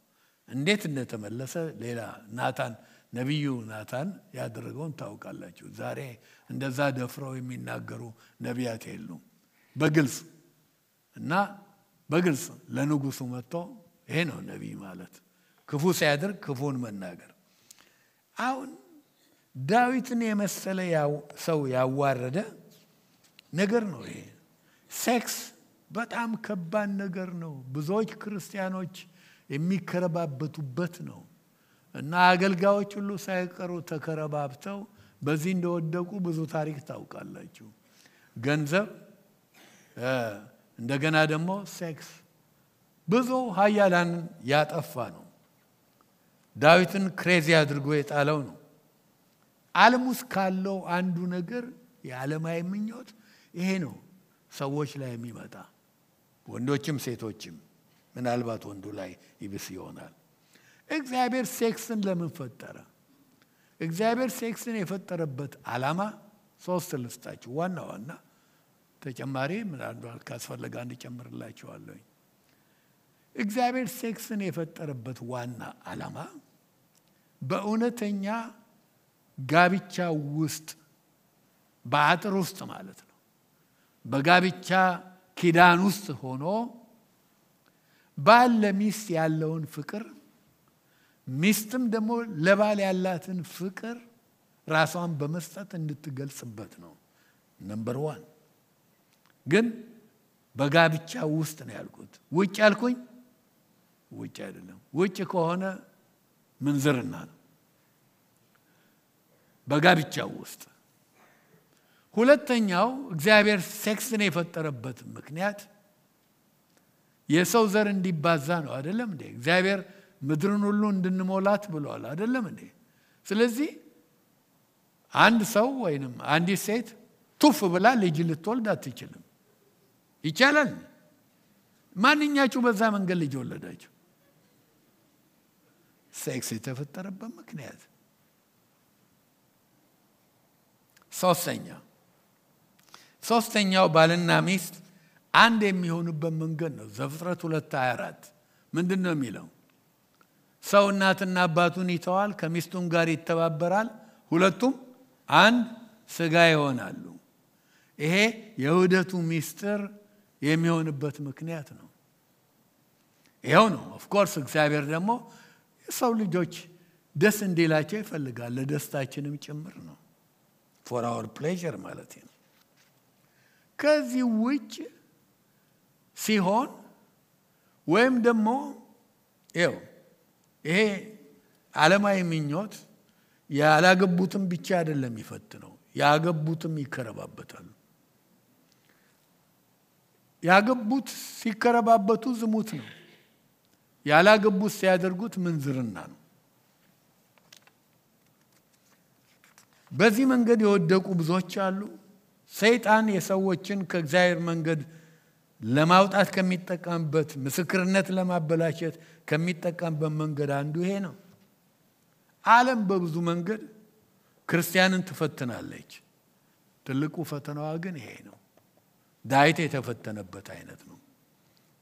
እንዴት እንደተመለሰ ሌላ ናታን ነቢዩ ናታን ያደረገውን ታውቃላችሁ። ዛሬ እንደዛ ደፍረው የሚናገሩ ነቢያት የሉም። በግልጽ እና በግልጽ ለንጉሱ መጥቶ ይሄ ነው ነቢይ ማለት፣ ክፉ ሲያደርግ ክፉን መናገር። አሁን ዳዊትን የመሰለ ሰው ያዋረደ ነገር ነው ይሄ። ሴክስ በጣም ከባድ ነገር ነው። ብዙዎች ክርስቲያኖች የሚከረባበቱበት ነው። እና አገልጋዮች ሁሉ ሳይቀሩ ተከረባብተው በዚህ እንደወደቁ ብዙ ታሪክ ታውቃላችሁ። ገንዘብ፣ እንደገና ደግሞ ሴክስ ብዙ ኃያላን ያጠፋ ነው። ዳዊትን ክሬዚ አድርጎ የጣለው ነው። ዓለም ውስጥ ካለው አንዱ ነገር የዓለማዊ ምኞት ይሄ ነው ሰዎች ላይ የሚመጣ፣ ወንዶችም ሴቶችም። ምናልባት ወንዱ ላይ ይብስ ይሆናል። እግዚአብሔር ሴክስን ለምን ፈጠረ? እግዚአብሔር ሴክስን የፈጠረበት ዓላማ 3 ልስጣችሁ። ዋና ተጨማሪ ምናልባት ካስፈለገ እንጨምርላችኋለሁ። እግዚአብሔር ሴክስን የፈጠረበት ዋና ዓላማ በእውነተኛ ጋብቻ ውስጥ በአጥር ውስጥ ማለት ነው፣ በጋብቻ ኪዳን ውስጥ ሆኖ ባል ለሚስት ያለውን ፍቅር፣ ሚስትም ደግሞ ለባል ያላትን ፍቅር ራሷን በመስጠት እንድትገልጽበት ነው። ነምበር 1 ግን በጋብቻ ውስጥ ነው ያልኩት። ውጭ ያልኩኝ ውጭ አይደለም። ውጭ ከሆነ ምንዝርና ነው። በጋብቻ ውስጥ። ሁለተኛው እግዚአብሔር ሴክስን የፈጠረበት ምክንያት የሰው ዘር እንዲባዛ ነው አይደለም እንዴ? እግዚአብሔር ምድርን ሁሉ እንድንሞላት ብሏል አይደለም እንዴ? ስለዚህ አንድ ሰው ወይንም አንዲት ሴት ቱፍ ብላ ልጅ ልትወልድ አትችልም። ይቻላል? ማንኛችሁ በዛ መንገድ ልጅ ወለዳችሁ? ሴክስ የተፈጠረበት ምክንያት። ሶስተኛው ባልና ሚስት አንድ የሚሆኑበት መንገድ ነው። ዘፍጥረት 2:24 ምንድን ነው የሚለው? ሰው እናትና አባቱን ይተዋል፣ ከሚስቱም ጋር ይተባበራል፣ ሁለቱም አንድ ስጋ ይሆናሉ። ይሄ የውህደቱ ሚስጥር የሚሆንበት ምክንያት ነው። ይሄው ነው። ኦፍ ኮርስ እግዚአብሔር ደግሞ የሰው ልጆች ደስ እንዲላቸው ይፈልጋል፣ ለደስታችንም ጭምር ነው። for our pleasure ማለት ነው። ከዚህ ውጭ ሲሆን ወይም ደግሞ ይሄ ዓለማዊ ምኞት ያላገቡትም ብቻ አይደለም ይፈትነው፣ ያገቡትም ይከረባበታሉ። ያገቡት ሲከረባበቱ ዝሙት ነው። ያላገቡት ሲያደርጉት ምንዝርና ነው። በዚህ መንገድ የወደቁ ብዙዎች አሉ። ሰይጣን የሰዎችን ከእግዚአብሔር መንገድ ለማውጣት ከሚጠቀምበት፣ ምስክርነት ለማበላሸት ከሚጠቀምበት መንገድ አንዱ ይሄ ነው። ዓለም በብዙ መንገድ ክርስቲያንን ትፈትናለች። ትልቁ ፈተናዋ ግን ይሄ ነው። ዳዊት የተፈተነበት አይነት ነው።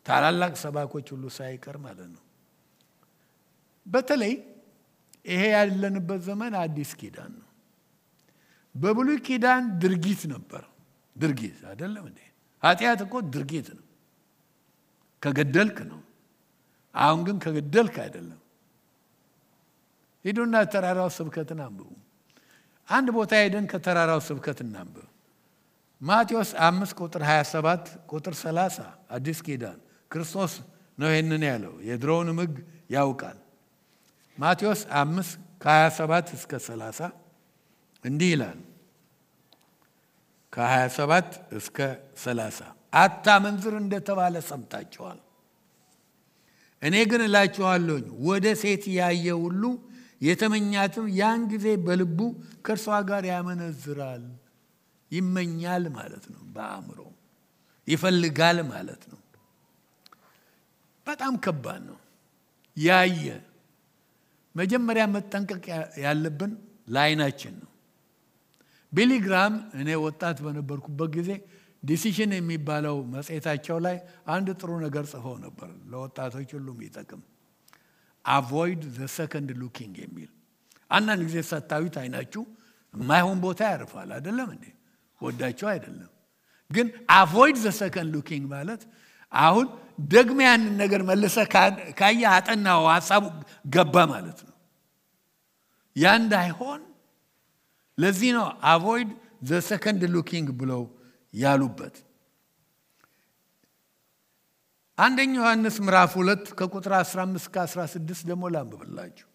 ታላላቅ ሰባኮች ሁሉ ሳይቀር ማለት ነው። በተለይ ይሄ ያለንበት ዘመን አዲስ ኪዳን ነው። በብሉይ ኪዳን ድርጊት ነበር። ድርጊት አይደለም እንዴ? ኃጢአት እኮ ድርጊት ነው። ከገደልክ ነው። አሁን ግን ከገደልክ አይደለም። ሂዱና ተራራው ስብከትን አንብቡ። አንድ ቦታ ሄደን ከተራራው ስብከት እናንብብ። ማቴዎስ 5:27-30 አዲስ ኪዳን ክርስቶስ ነው ይሄንን ያለው። የድሮውን ሕግ ያውቃል። ማቴዎስ ከ27 እስከ 30 እንዲህ ይላል። ከ27 እስከ 30 አታመንዝር እንደተባለ ሰምታችኋል። እኔ ግን እላችኋለሁ ወደ ሴት ያየ ሁሉ የተመኛትም ያን ጊዜ በልቡ ከእርሷ ጋር ያመነዝራል። ይመኛል ማለት ነው። በአእምሮ ይፈልጋል ማለት ነው። በጣም ከባድ ነው። ያየ መጀመሪያ መጠንቀቅ ያለብን ለዓይናችን ነው። ቢሊ ግራም እኔ ወጣት በነበርኩበት ጊዜ ዲሲሽን የሚባለው መጽሔታቸው ላይ አንድ ጥሩ ነገር ጽፈው ነበር፣ ለወጣቶች ሁሉ የሚጠቅም avoid the second looking የሚል። አንዳንድ ጊዜ ሰታዊት አይናችሁ የማይሆን ቦታ ያርፋል አይደለም እንዴ? ወዳችሁ አይደለም ግን avoid the second looking ማለት አሁን ደግሜ ያንን ነገር መልሰ ካየ አጠናው ሐሳቡ ገባ ማለት ነው። ያ እንዳይሆን ለዚህ ነው avoid the second looking ብለው ያሉበት። አንደኛ ዮሐንስ ምዕራፍ 2 ከቁጥር 15 እስከ 16 ደግሞ ላንብብላችሁ።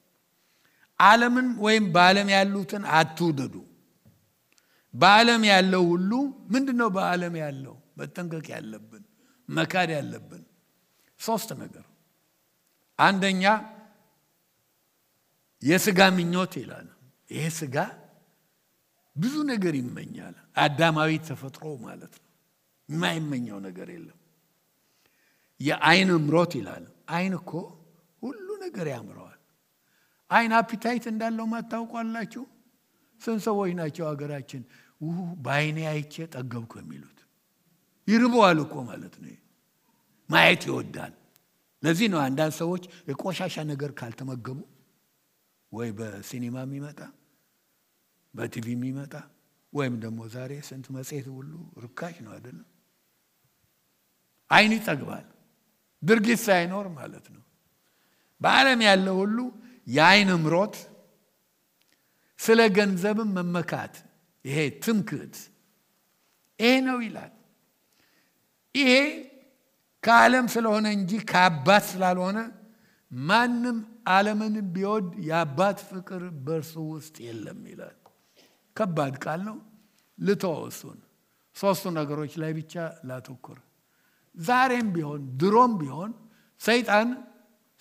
ዓለምን ወይም በዓለም ያሉትን አትውደዱ። በዓለም ያለው ሁሉ ምንድነው? በዓለም ያለው መጠንቀቅ ያለብን መካድ ያለብን 3 ነገር። አንደኛ የሥጋ ምኞት ይላል። ይሄ ሥጋ ብዙ ነገር ይመኛል። አዳማዊ ተፈጥሮ ማለት ነው። የማይመኘው ነገር የለም። የዓይን ምሮት ይላል። ዓይን እኮ ሁሉ ነገር ያምረዋል። ዓይን አፒታይት እንዳለው ማታውቋላችሁ? ስንት ሰዎች ናቸው ሀገራችን በዓይኔ አይቼ ጠገብኩ የሚሉት? ይርበዋል እኮ ማለት ነው። ማየት ይወዳል። ለዚህ ነው አንዳንድ ሰዎች የቆሻሻ ነገር ካልተመገቡ ወይ በሲኒማ የሚመጣ በቲቪ የሚመጣ ወይም ደግሞ ዛሬ ስንት መጽሔት ሁሉ ርካሽ ነው አይደለም? ዓይን ይጠግባል ድርጊት ሳይኖር ማለት ነው። በዓለም ያለው ሁሉ የዓይን ምሮት፣ ስለ ገንዘብም መመካት፣ ይሄ ትምክህት ይሄ ነው ይላል። ይሄ ከዓለም ስለሆነ እንጂ ከአባት ስላልሆነ ማንም ዓለምን ቢወድ የአባት ፍቅር በእርሱ ውስጥ የለም ይላል። ከባድ ቃል ነው። ልተወው እሱን። 3 ነገሮች ላይ ብቻ ላተኩር። ዛሬም ቢሆን ድሮም ቢሆን ሰይጣን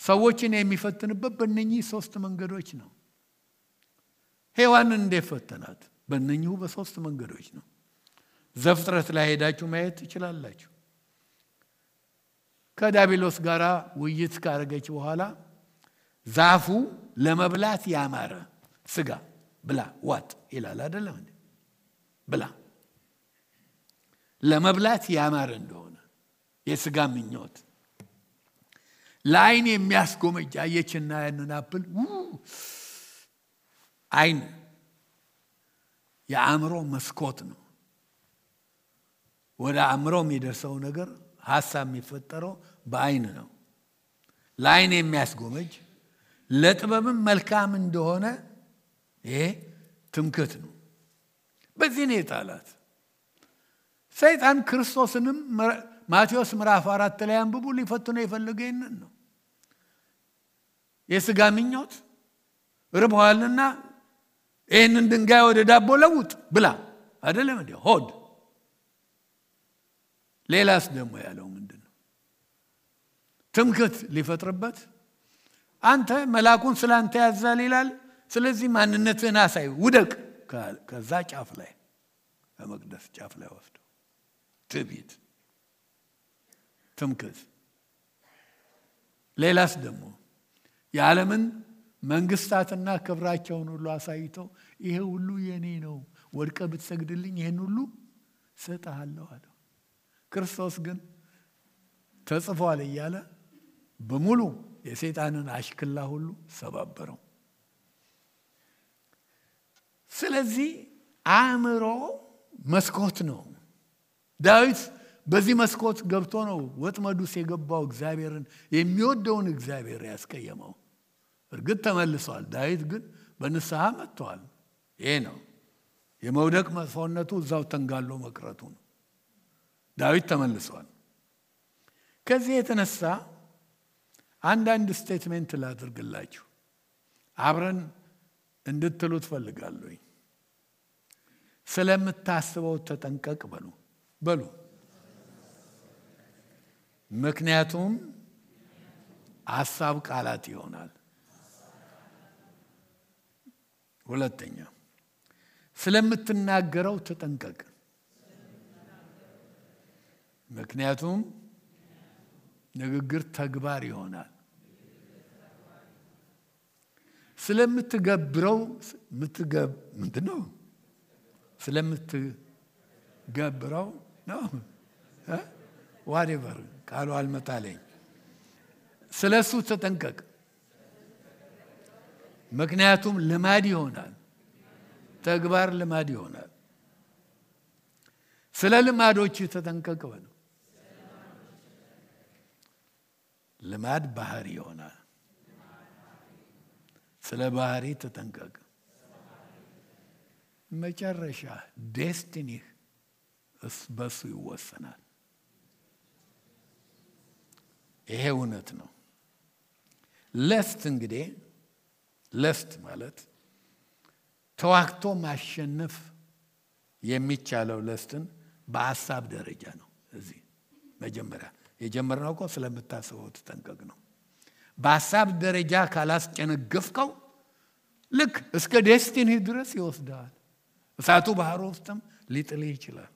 ሰዎችን የሚፈትንበት በእነኚህ 3 መንገዶች ነው። ሔዋንን እንዴት ፈተናት? በእነኚሁ በ3 መንገዶች ነው። ዘፍጥረት ላይ ሄዳችሁ ማየት ትችላላችሁ። ከዲያብሎስ ጋር ውይይት ካደረገች በኋላ ዛፉ ለመብላት ያማረ ስጋ ብላ ዋጥ ይላል አይደለም እንዴ? ብላ ለመብላት ያማረ እንደሆነ የስጋ ምኞት ለዓይን የሚያስጎመጅ አየችና ያንን አፕል ዓይን የአእምሮ መስኮት ነው። ወደ አእምሮ የሚደርሰው ነገር ሐሳብ የሚፈጠረው በዓይን ነው። ለዓይን የሚያስጎመጅ ለጥበብም መልካም እንደሆነ ይሄ ትምክህት ነው። በዚህ ነው የጣላት። ሰይጣን ክርስቶስንም ማቴዎስ ምዕራፍ 4 ላይ አንብቡ ሊፈትነው የፈለገው ይሄንን ነው። የሥጋ ምኞት ርቦሃልና ይሄንን ድንጋይ ወደ ዳቦ ለውጥ ብላ አይደለም እንዴ? ሆድ። ሌላስ ደግሞ ያለው ምንድነው? ትምክህት ሊፈጥርበት አንተ መልአኩን ስላንተ ያዛል ይላል። ስለዚህ ማንነትህን አሳይ ውደቅ። ከዛ ጫፍ ላይ ከመቅደስ ጫፍ ላይ ወስዶ ትዕቢት፣ ትምክህት። ሌላስ ደግሞ የዓለምን መንግስታትና ክብራቸውን ሁሉ አሳይተው ይሄ ሁሉ የኔ ነው፣ ወድቀ ብትሰግድልኝ ይሄን ሁሉ ሰጣለሁ አለ። ክርስቶስ ግን ተጽፏል እያለ በሙሉ የሰይጣንን አሽክላ ሁሉ ሰባበረው። ስለዚህ አእምሮ መስኮት ነው። ዳዊት በዚህ መስኮት ገብቶ ነው ወጥመዱስ የገባው እግዚአብሔርን የሚወደውን እግዚአብሔር ያስቀየመው። እርግጥ ተመልሷል። ዳዊት ግን በንስሐ መጥቷል። ይሄ ነው የመውደቅ መጥፎነቱ፣ እዛው ተንጋሎ መቅረቱ ነው። ዳዊት ተመልሷል። ከዚህ የተነሳ አንዳንድ ስቴትሜንት ላድርግላችሁ። አብረን እንድትሉ ትፈልጋለሁ። ስለምታስበው ተጠንቀቅ በሉ። ምክንያቱም ሐሳብ ቃላት ይሆናል። ሁለተኛ ስለምትናገረው ተጠንቀቅ። ምክንያቱም ንግግር ተግባር ይሆናል። ስለምትገብረው ምንድነው? ስለምትገብረው ነው whatever ቃሉ አልመጣለኝ። ስለሱ ተጠንቀቅ። ምክንያቱም ልማድ ይሆናል። ተግባር ልማድ ይሆናል። ስለ ልማዶች ተጠንቀቅ በሉ። ልማድ ባህሪ ይሆናል። ስለ ባህሪ ተጠንቀቅ። መጨረሻ ዴስቲኒህ በሱ ይወሰናል። ይሄ እውነት ነው። ለስት ማለት ተዋክቶ ማሸነፍ የሚቻለው ለስትን በሐሳብ ደረጃ ነው። እዚህ መጀመሪያ የጀመርነው እኮ ስለምታስበው ተጠንቀቅ ነው። በሐሳብ ደረጃ ካላስጨነገፍከው ልክ እስከ ዴስቲኒ ድረስ ይወስዳል። እሳቱ ባህር ውስጥም ሊጥልህ ይችላል።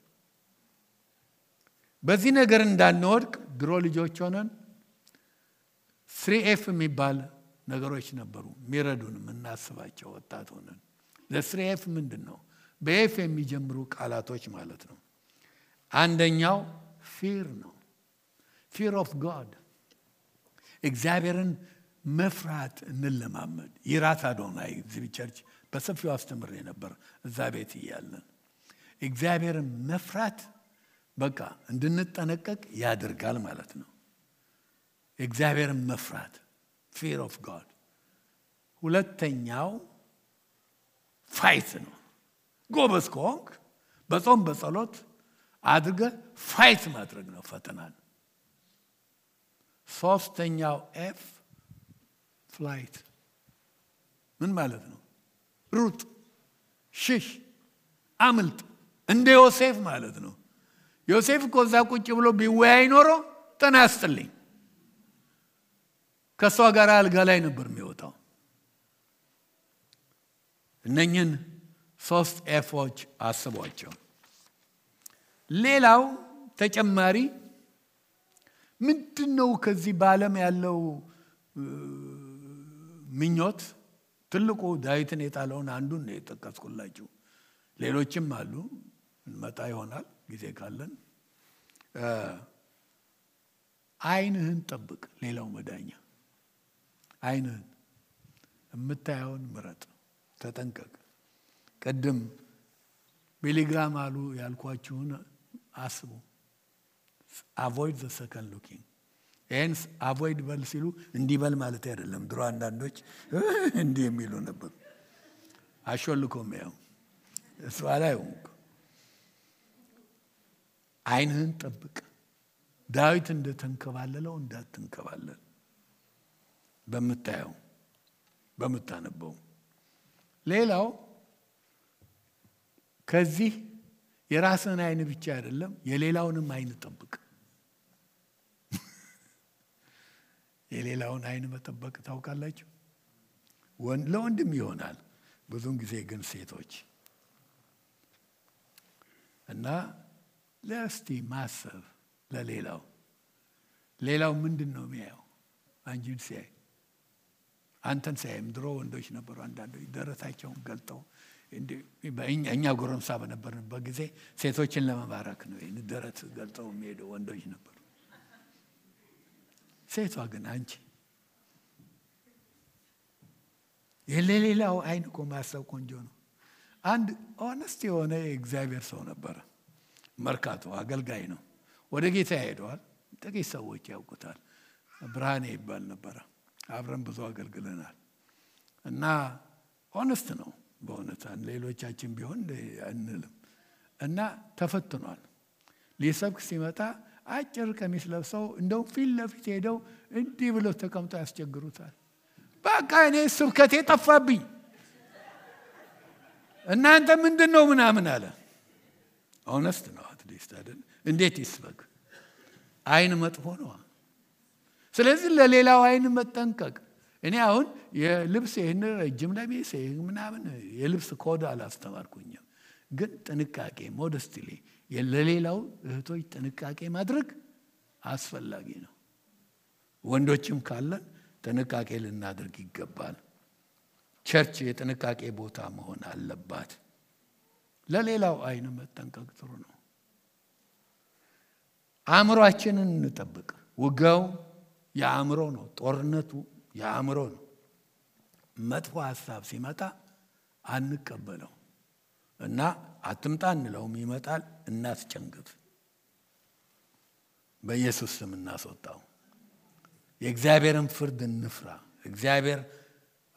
በዚህ ነገር እንዳንወድቅ ድሮ ልጆች ሆነን 3F የሚባል ነገሮች ነበሩ የሚረዱን የምናስባቸው ወጣት ሆነን። ለ3F ምንድነው? በኤፍ የሚጀምሩ ቃላቶች ማለት ነው። አንደኛው ፊር ነው። ፊር ኦፍ ጋድ። እግዚአብሔርን መፍራት እንለማመድ። ይራት አዶናይ እዚህ ቸርች በሰፊው አስተምሬ ነበር እዛ ቤት እያለን። እግዚአብሔርን መፍራት በቃ እንድንጠነቀቅ ያደርጋል ማለት ነው። እግዚአብሔርን መፍራት fear of God። ሁለተኛው ፋይት ነው። ጎበዝ ከሆንክ በጾም በጸሎት አድርገህ ፋይት ማድረግ ነው ፈተናን። ሶስተኛው ኤፍ ፍላይት። ምን ማለት ነው? ሩጥ፣ ሽሽ፣ አምልጥ። እንደ ዮሴፍ ማለት ነው። ዮሴፍ እኮ እዛ ቁጭ ብሎ ቢወያይ ኖሮ ተናስተልኝ ከሷ ጋር አልጋ ላይ ነበር የሚወጣው። እነኝን 3 ኤፎች አስቧቸው። ሌላው ተጨማሪ ምንድነው? ከዚህ በዓለም ያለው ምኞት ትልቁ ዳዊትን የጣለውን አንዱን ነው የጠቀስኩላችሁ። ሌሎችም አሉ፣ እንመጣ ይሆናል ጊዜ ካለን። ዓይንህን ጠብቅ። ሌላው መዳኛ ዓይንህን፣ የምታየውን ምረጥ፣ ተጠንቀቅ። ቀደም ቢሊግራም አሉ ያልኳችሁን አስቡ። avoid the second looking። hence avoid በል ሲሉ እንዲበል ማለት አይደለም። ድሮ አንዳንዶች እንዲህ የሚሉ ነበር። አሾልኮም ያው እሱ አላየውም። ዓይንህን ጠብቅ። ዳዊት እንደተንከባለለው እንዳትንከባለል። በምታየው በምታነበው። ሌላው ከዚህ የራስን ዓይን ብቻ አይደለም የሌላውንም ዓይን ጠብቅ። የሌላውን ዓይን መጠበቅ ታውቃላችሁ? ለወንድም ይሆናል ብዙን ጊዜ ግን ሴቶች እና ለስቲ ማሰብ ሌላው ምንድነው የሚያየው? አንቺን ሲያይ አንተን ሲያይም ድሮ ወንዶች ነበሩ አንዳንዶች ደረታቸውን ገልጠው እኛ ጎረምሳ በነበርንበት ጊዜ ሴቶችን ለመባረክ ነው ደረት ገልጠው የሚሄዱ ወንዶች ነበሩ። ሴቷ ግን አንቺ የሌላው ዓይን እኮ ማሰብ ቆንጆ ነው። አንድ ሆነስት የሆነ የእግዚአብሔር ሰው ነበረ። መርካቶ አገልጋይ ነው። ወደ ጌታ ሄደዋል። ጥቂት ሰዎች ያውቁታል። ብርሃኔ ይባል ነበረ። አብረን ብዙ አገልግለናል እና ሆነስት ነው በእውነት። ሌሎቻችን ቢሆን አንልም። እና ተፈትኗል። ሊሰብክ ሲመጣ አጭር ቀሚስ ለብሰው እንደው ፊት ለፊት ሄደው እንዲህ ብለው ተቀምጠው ያስቸግሩታል። በቃ እኔ ስብከቴ ጠፋብኝ። እናንተ ምንድነው ምናምን አለ። ኦነስት ነው አትሊስት አይደል? እንዴት ይስበክ? አይን መጥፎ ነው። ስለዚህ ለሌላው አይን መጠንቀቅ። እኔ አሁን የልብስ ይሄን ረጅም ለሚስ ምናምን የልብስ ኮድ አላስተማርኩኝም፣ ግን ጥንቃቄ ሞደስትሊ ለሌላው እህቶች ጥንቃቄ ማድረግ አስፈላጊ ነው። ወንዶችም ካለን ጥንቃቄ ልናደርግ ይገባል። ቸርች የጥንቃቄ ቦታ መሆን አለባት። ለሌላው አይን መጠንቀቅ ጥሩ ነው። አእምሮአችንን እንጠብቅ። ውጋው የአእምሮ ነው። ጦርነቱ የአእምሮ ነው። መጥፎ ሐሳብ ሲመጣ አንቀበለው እና አትምጣ እንለውም፣ ይመጣል፣ እናስጨንግፍ። በኢየሱስ ስም እናስወጣው። የእግዚአብሔርን ፍርድ እንፍራ። እግዚአብሔር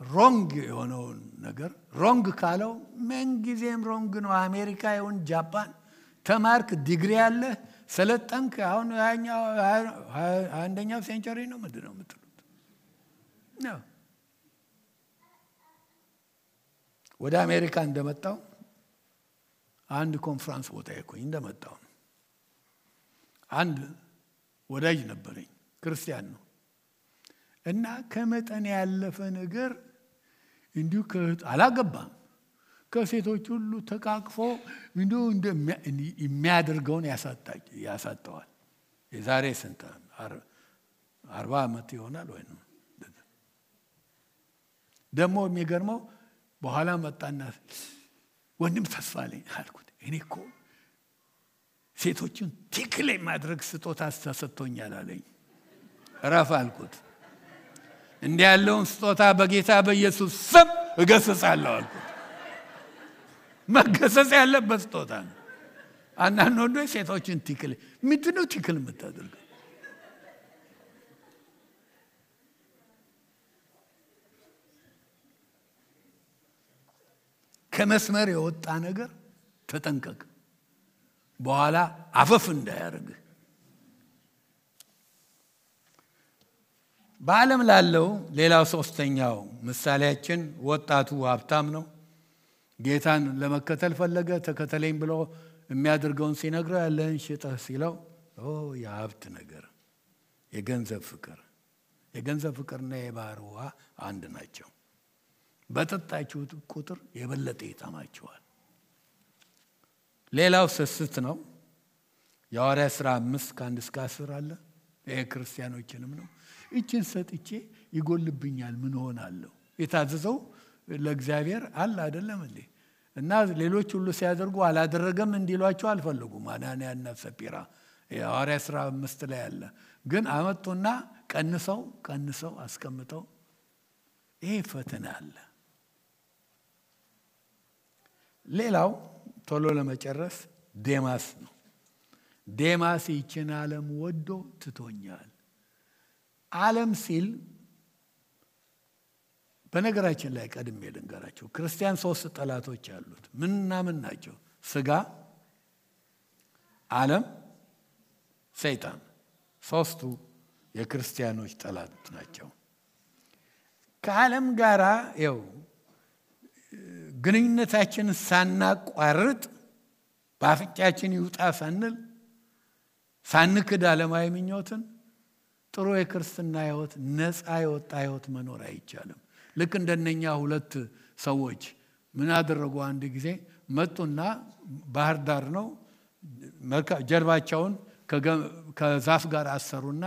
ሮንግ የሆነውን ነገር ሮንግ ካለው ምን ጊዜም ሮንግ ነው። አሜሪካ ይሁን ጃፓን ተማርክ፣ ዲግሪ ያለ ሰለጠንክ፣ አሁን አንደኛው ሴንቸሪ ነው ምንድነው የምትሉት ነው። ወደ አሜሪካ እንደመጣው አንድ ኮንፈረንስ ቦታ ይኮኝ እንደመጣው አንድ ወዳጅ ነበረኝ፣ ክርስቲያን ነው እና ከመጠን ያለፈ ነገር እንዲሁ አላገባም፣ ከሴቶች ሁሉ ተቃቅፎ እንዲሁ የሚያደርገውን ያሳጠዋል። የዛሬ ስንት 40 ዓመት ይሆናል ወይ ነው። ደግሞ የሚገርመው በኋላ መጣና ወንድም ተስፋ አለኝ አልኩት። እኔ እኮ ሴቶችን ቲክል ማድረግ ስጦታ ተሰጥቶኛል አለኝ። ረፍ አልኩት። እንዲህ ያለውን ስጦታ በጌታ በኢየሱስ ስም እገስጻለሁ አልኩት። መገሰጽ ያለበት ስጦታ ነው። አንዳንድ ወንዶች ሴቶችን ቲክል ምንድነው ቲክል የምታደርገው? ከመስመር የወጣ ነገር ተጠንቀቅ፣ በኋላ አፈፍ እንዳያርግ። በዓለም ላለው ሌላው ሶስተኛው ምሳሌያችን ወጣቱ ሀብታም ነው። ጌታን ለመከተል ፈለገ። ተከተለኝ ብሎ የሚያደርገውን ሲነግረው ያለህን ሽጠህ ሲለው የሀብት ነገር፣ የገንዘብ ፍቅርና የባህር ውሃ አንድ ናቸው። በጠጣችሁት ቁጥር የበለጠ ይጠማችኋል። ሌላው ስስት ነው። የሐዋርያት ሥራ 5:1-10 አለ። ይሄ ክርስቲያኖችንም ነው። እችን ሰጥቼ ይጎልብኛል ምን ሆናለሁ? የታዘዘው ለእግዚአብሔር አለ አይደለም እንዴ? እና ሌሎች ሁሉ ሲያደርጉ አላደረገም እንዲሏቸው አልፈለጉም። አናንያና ሰጲራ የሐዋርያት ሥራ 5 ላይ አለ። ግን አመጡና ቀንሰው አስቀምጠው ይሄ ፈተና አለ። ሌላው ቶሎ ለመጨረስ ዴማስ ነው። ዴማስ ይችን ዓለም ወዶ ትቶኛል። ዓለም ሲል በነገራችን ላይ ቀድሜ ልንገራቸው፣ ክርስቲያን 3 ጠላቶች አሉት። ምንና ምን ናቸው? ስጋ፣ ዓለም፣ ሰይጣን። 3ቱ የክርስቲያኖች ጠላት ናቸው። ከዓለም ጋራ ግንኙነታችንን ሳናቋርጥ በአፍንጫችን ይውጣ ሳንል ሳንክድ ዓለማዊ ምኞትን ጥሩ የክርስትና ሕይወት ነፃ የወጣ ሕይወት መኖር አይቻልም። ልክ እንደነኛ 2 ሰዎች ምን አደረጉ? አንድ ጊዜ መጡና ባህር ዳር ነው ጀርባቸውን ከዛፍ ጋር አሰሩና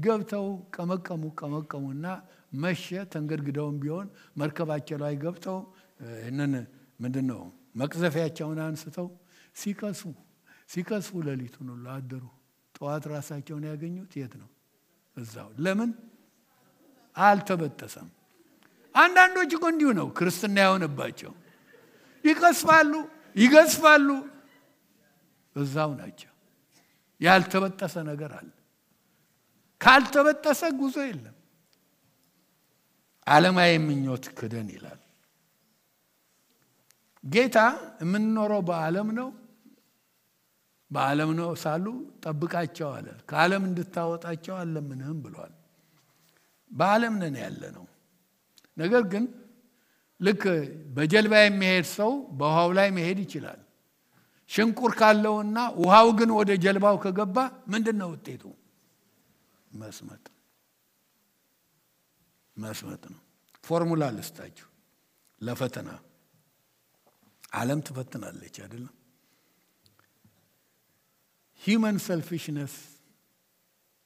ገብተው ቀመቀሙና መሸ። ተንገድግደውም ቢሆን መርከባቸው ላይ ገብተው እነን ምንድነው መቅዘፊያቸውን አንስተው ሲከስፉ ሌሊቱን ሁሉ አደሩ። ጠዋት ራሳቸውን ያገኙት የት ነው? እዛው። ለምን አልተበጠሰም? አንዳንዶች እኮ እንዲሁ ነው ክርስትና የሆነባቸው። ይገስፋሉ፣ እዛው ናቸው። ያልተበጠሰ ነገር አለ። ካልተበጠሰ ጉዞ የለም። ዓለማዊ ምኞት ክደን ይላል ጌታ። የምንኖረው በዓለም ነው ሳሉ ጠብቃቸው አለ። ከዓለም እንድታወጣቸው አለምንህም ብሏል። በዓለም ነን ያለ ነው። ነገር ግን ልክ በጀልባ የሚሄድ ሰው በውሃው ላይ መሄድ ይችላል። ሽንቁር ካለውና ውሃው ግን ወደ ጀልባው ከገባ ምንድነው ውጤቱ? መስመጥ ነው። ፎርሙላ ልስጣችሁ ለፈተና። ዓለም ትፈትናለች አይደለም? human selfishness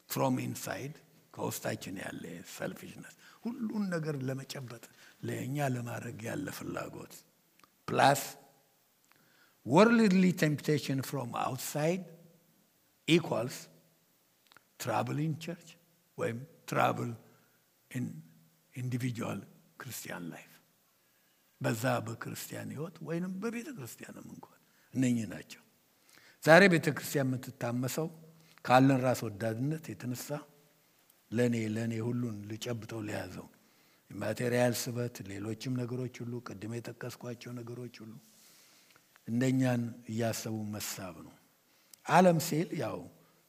from inside ከውስጣችን ያለ selfishness ሁሉን ነገር ለመጨበጥ ለኛ ለማድረግ ያለ ፍላጎት plus worldly temptation from outside equals trouble in church ወይም trouble in individual Christian life በዛ በክርስቲያን ህይወት ወይንም በቤተ ክርስቲያንም እንኳን እነኚህ ናቸው። ዛሬ ቤተ ክርስቲያን የምትታመሰው ካለን ራስ ወዳድነት የተነሳ ለኔ ሁሉን ልጨብጠው ለያዘው ማቴሪያል ስበት ሌሎችም ነገሮች ሁሉ ቅድም የጠቀስኳቸው ነገሮች ሁሉ እንደኛን እያሰቡ መሳብ ነው። ዓለም ሲል ያው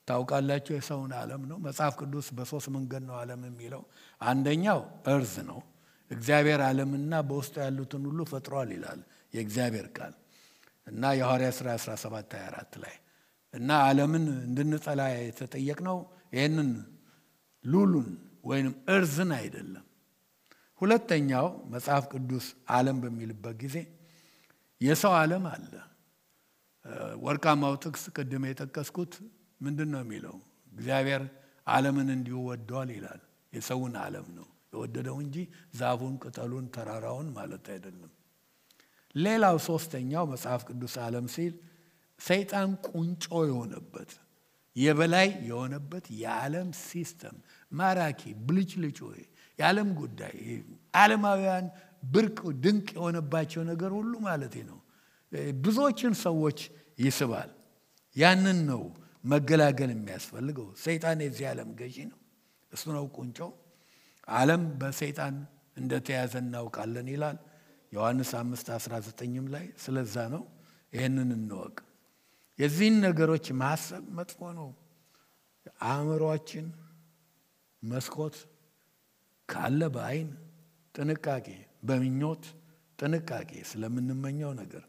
ታውቃላችሁ የሰውን ዓለም ነው። መጽሐፍ ቅዱስ በሶስት መንገድ ነው ዓለም የሚለው። አንደኛው እርዝ ነው። እግዚአብሔር ዓለምና በውስጡ ያሉትን ሁሉ ፈጥሯል ይላል የእግዚአብሔር ቃል እና የሐዋርያት ሥራ 17:24 ላይ እና ዓለምን እንድንጠላ የተጠየቅነው ይሄንን ሉሉን ወይንም እርዝን አይደለም። ሁለተኛው መጽሐፍ ቅዱስ ዓለም በሚልበት ጊዜ የሰው ዓለም አለ። ወርቃማው ጥቅስ ቅድም የጠቀስኩት ምንድነው የሚለው? እግዚአብሔር ዓለምን እንዲሁ ወዷል ይላል። የሰውን ዓለም ነው የወደደው እንጂ ዛፉን፣ ቅጠሉን፣ ተራራውን ማለት አይደለም። ሌላው ሶስተኛው መጽሐፍ ቅዱስ ዓለም ሲል ሰይጣን ቁንጮ የሆነበት የበላይ የሆነበት የዓለም ሲስተም ማራኪ ብልጭልጭ የዓለም ጉዳይ ዓለማውያን ብርቅ ድንቅ የሆነባቸው ነገር ሁሉ ማለት ነው ብዙዎችን ሰዎች ይስባል። ያንን ነው መገላገል የሚያስፈልገው። ሰይጣን የዚህ ዓለም ገዢ ነው። እሱ ነው ቁንጮ። ዓለም በሰይጣን እንደተያዘ እናውቃለን ይላል ዮሐንስ 5:19 ላይ። ስለዛ ነው ይሄንን እንወቅ። የዚህን ነገሮች ማሰብ መጥፎ ነው። አእምሮአችን መስኮት ካለ በአይን ጥንቃቄ፣ በምኞት ጥንቃቄ ስለምንመኘው ነገር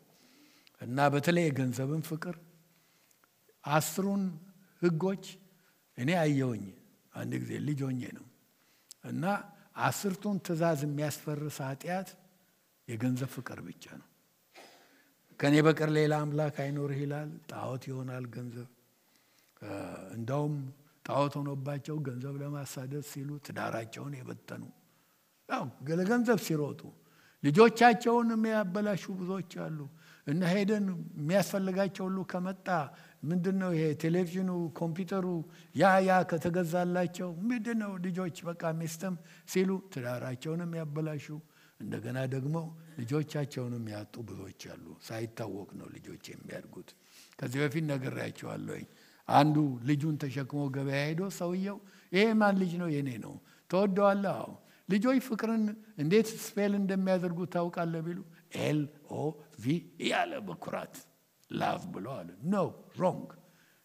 እና በተለይ የገንዘብን ፍቅር 10ን ህጎች እኔ አየሁኝ አንድ ጊዜ ልጅ ሆኜ ነው እና 10ቱን ትእዛዝ የሚያስፈርስ ኃጢአት የገንዘብ ፍቅር ብቻ ነው። ከኔ በቀር ሌላ አምላክ አይኖርህ ይላል። ጣዖት ይሆናል ገንዘብ። እንደውም ጣዖት ሆኖባቸው ገንዘብ ለማሳደድ ሲሉ ትዳራቸውን የበተኑ ያው ለገንዘብ ሲሮጡ ልጆቻቸውን የሚያበላሹ ብዙዎች አሉ። እና ሄደን የሚያስፈልጋቸው ሁሉ ከመጣ ምንድነው ይሄ ቴሌቪዥኑ፣ ኮምፒውተሩ ያ ከተገዛላቸው ምንድነው ልጆች በቃ ሚስትም ሲሉ ትዳራቸውንም ያበላሹ እንደገና ደግሞ ልጆቻቸውንም ያጡ ብዙዎች አሉ። ሳይታወቅ ነው ልጆች የሚያድጉት። ከዚህ በፊት ነግሬያቸዋለሁ። አንዱ ልጁን ተሸክሞ ገበያ ሄዶ ሰውየው ይሄ ማን ልጅ ነው? የኔ ነው። ተወደዋለህ? አዎ። ልጆች ፍቅርን እንዴት ስፔል እንደሚያደርጉ ታውቃለህ ቢሉ LOV ያለ በኩራት ላቭ ብሎ አለ። ኖ ሮንግ።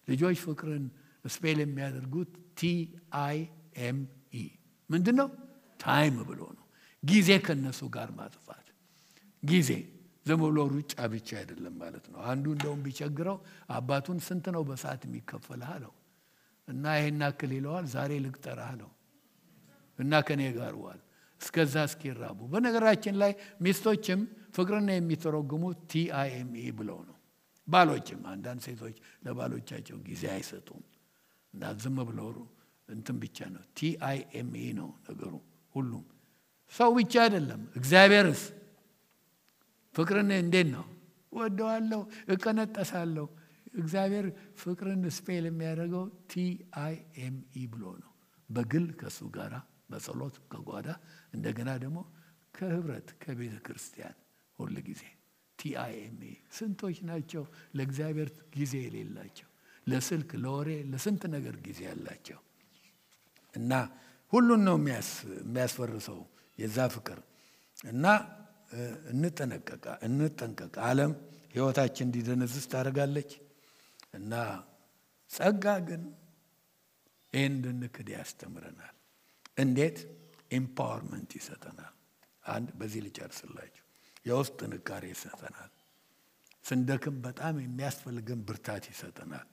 ልጆች ፍቅርን ስፔል የሚያደርጉት TIME ምንድነው? ታይም ብሎ ነው። ጊዜ ከነሱ ጋር ማጥፋት። ጊዜ ዝም ብሎ ሩጫ ብቻ አይደለም ማለት ነው። አንዱ እንደውም ቢቸግረው አባቱን ስንት ነው በሰዓት የሚከፈልህ አለው እና ይሄን አክል ይለዋል። ዛሬ ልቅጠርህ አለው እና ከኔ ጋር ዋል እስከዛ እስኪራቡ። በነገራችን ላይ ሚስቶችም ፍቅርን የሚተረጉሙት TIME ብለው ነው። ባሎችም አንዳንድ ሴቶች ለባሎቻቸው ጊዜ አይሰጡም እና ዝም ብለው እንትን ብቻ ነው። TIME ነው ነገሩ። ሁሉም ሰው ብቻ አይደለም። እግዚአብሔርስ ፍቅርን እንዴት ነው? ወደዋለሁ፣ እቀነጠሳለሁ። እግዚአብሔር ፍቅርን ስፔል የሚያደርገው TIME ብሎ ነው። በግል ከሱ ጋራ በጸሎት ከጓዳ እንደገና ደግሞ ከህብረት ከቤተ ክርስቲያን ሁሉ ጊዜ TIME። ስንቶች ናቸው ለእግዚአብሔር ጊዜ የሌላቸው? ለስልክ፣ ለወሬ፣ ለስንት ነገር ጊዜ ያላቸው እና ሁሉን ነው የሚያስፈርሰው የዛ ፍቅር እና እንጠንቀቅ። ዓለም ህይወታችን እንዲደነዝዝ ታደርጋለች እና ጸጋ ግን ይህን እንድንክድ ያስተምረናል። እንዴት? ኤምፓወርመንት ይሰጠናል። አንድ በዚህ ልጨርስላችሁ። የውስጥ ጥንካሬ ይሰጠናል። ስንደክም በጣም የሚያስፈልገን ብርታት ይሰጠናል።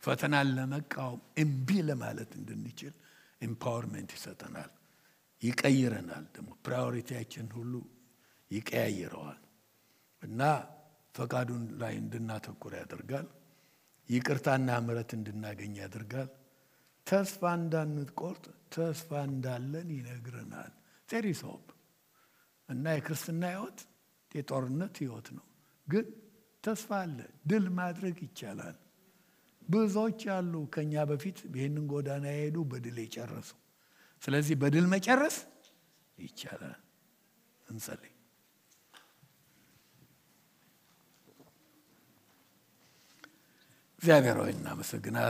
ፈተናን ለመቃወም እምቢ ለማለት እንድንችል ኤምፓወርመንት ይሰጠናል። ይቀይረናል። ደግሞ ፕራዮሪቲያችን ሁሉ ይቀያይረዋል እና ፈቃዱን ላይ እንድናተኩር ያደርጋል። ይቅርታና ምሕረት እንድናገኝ ያደርጋል። ተስፋ እንዳንቆርጥ ተስፋ እንዳለን ይነግረናል። there is hope እና የክርስትና ሕይወት የጦርነት ሕይወት ነው፣ ግን ተስፋ አለ። ድል ማድረግ ይቻላል። ብዙዎች አሉ ከኛ በፊት ይህንን ጎዳና የሄዱ በድል የጨረሱ። ስለዚህ በድል መጨረስ ይቻላል። እንጸልይ። እግዚአብሔር ሆይ እናመሰግናለን።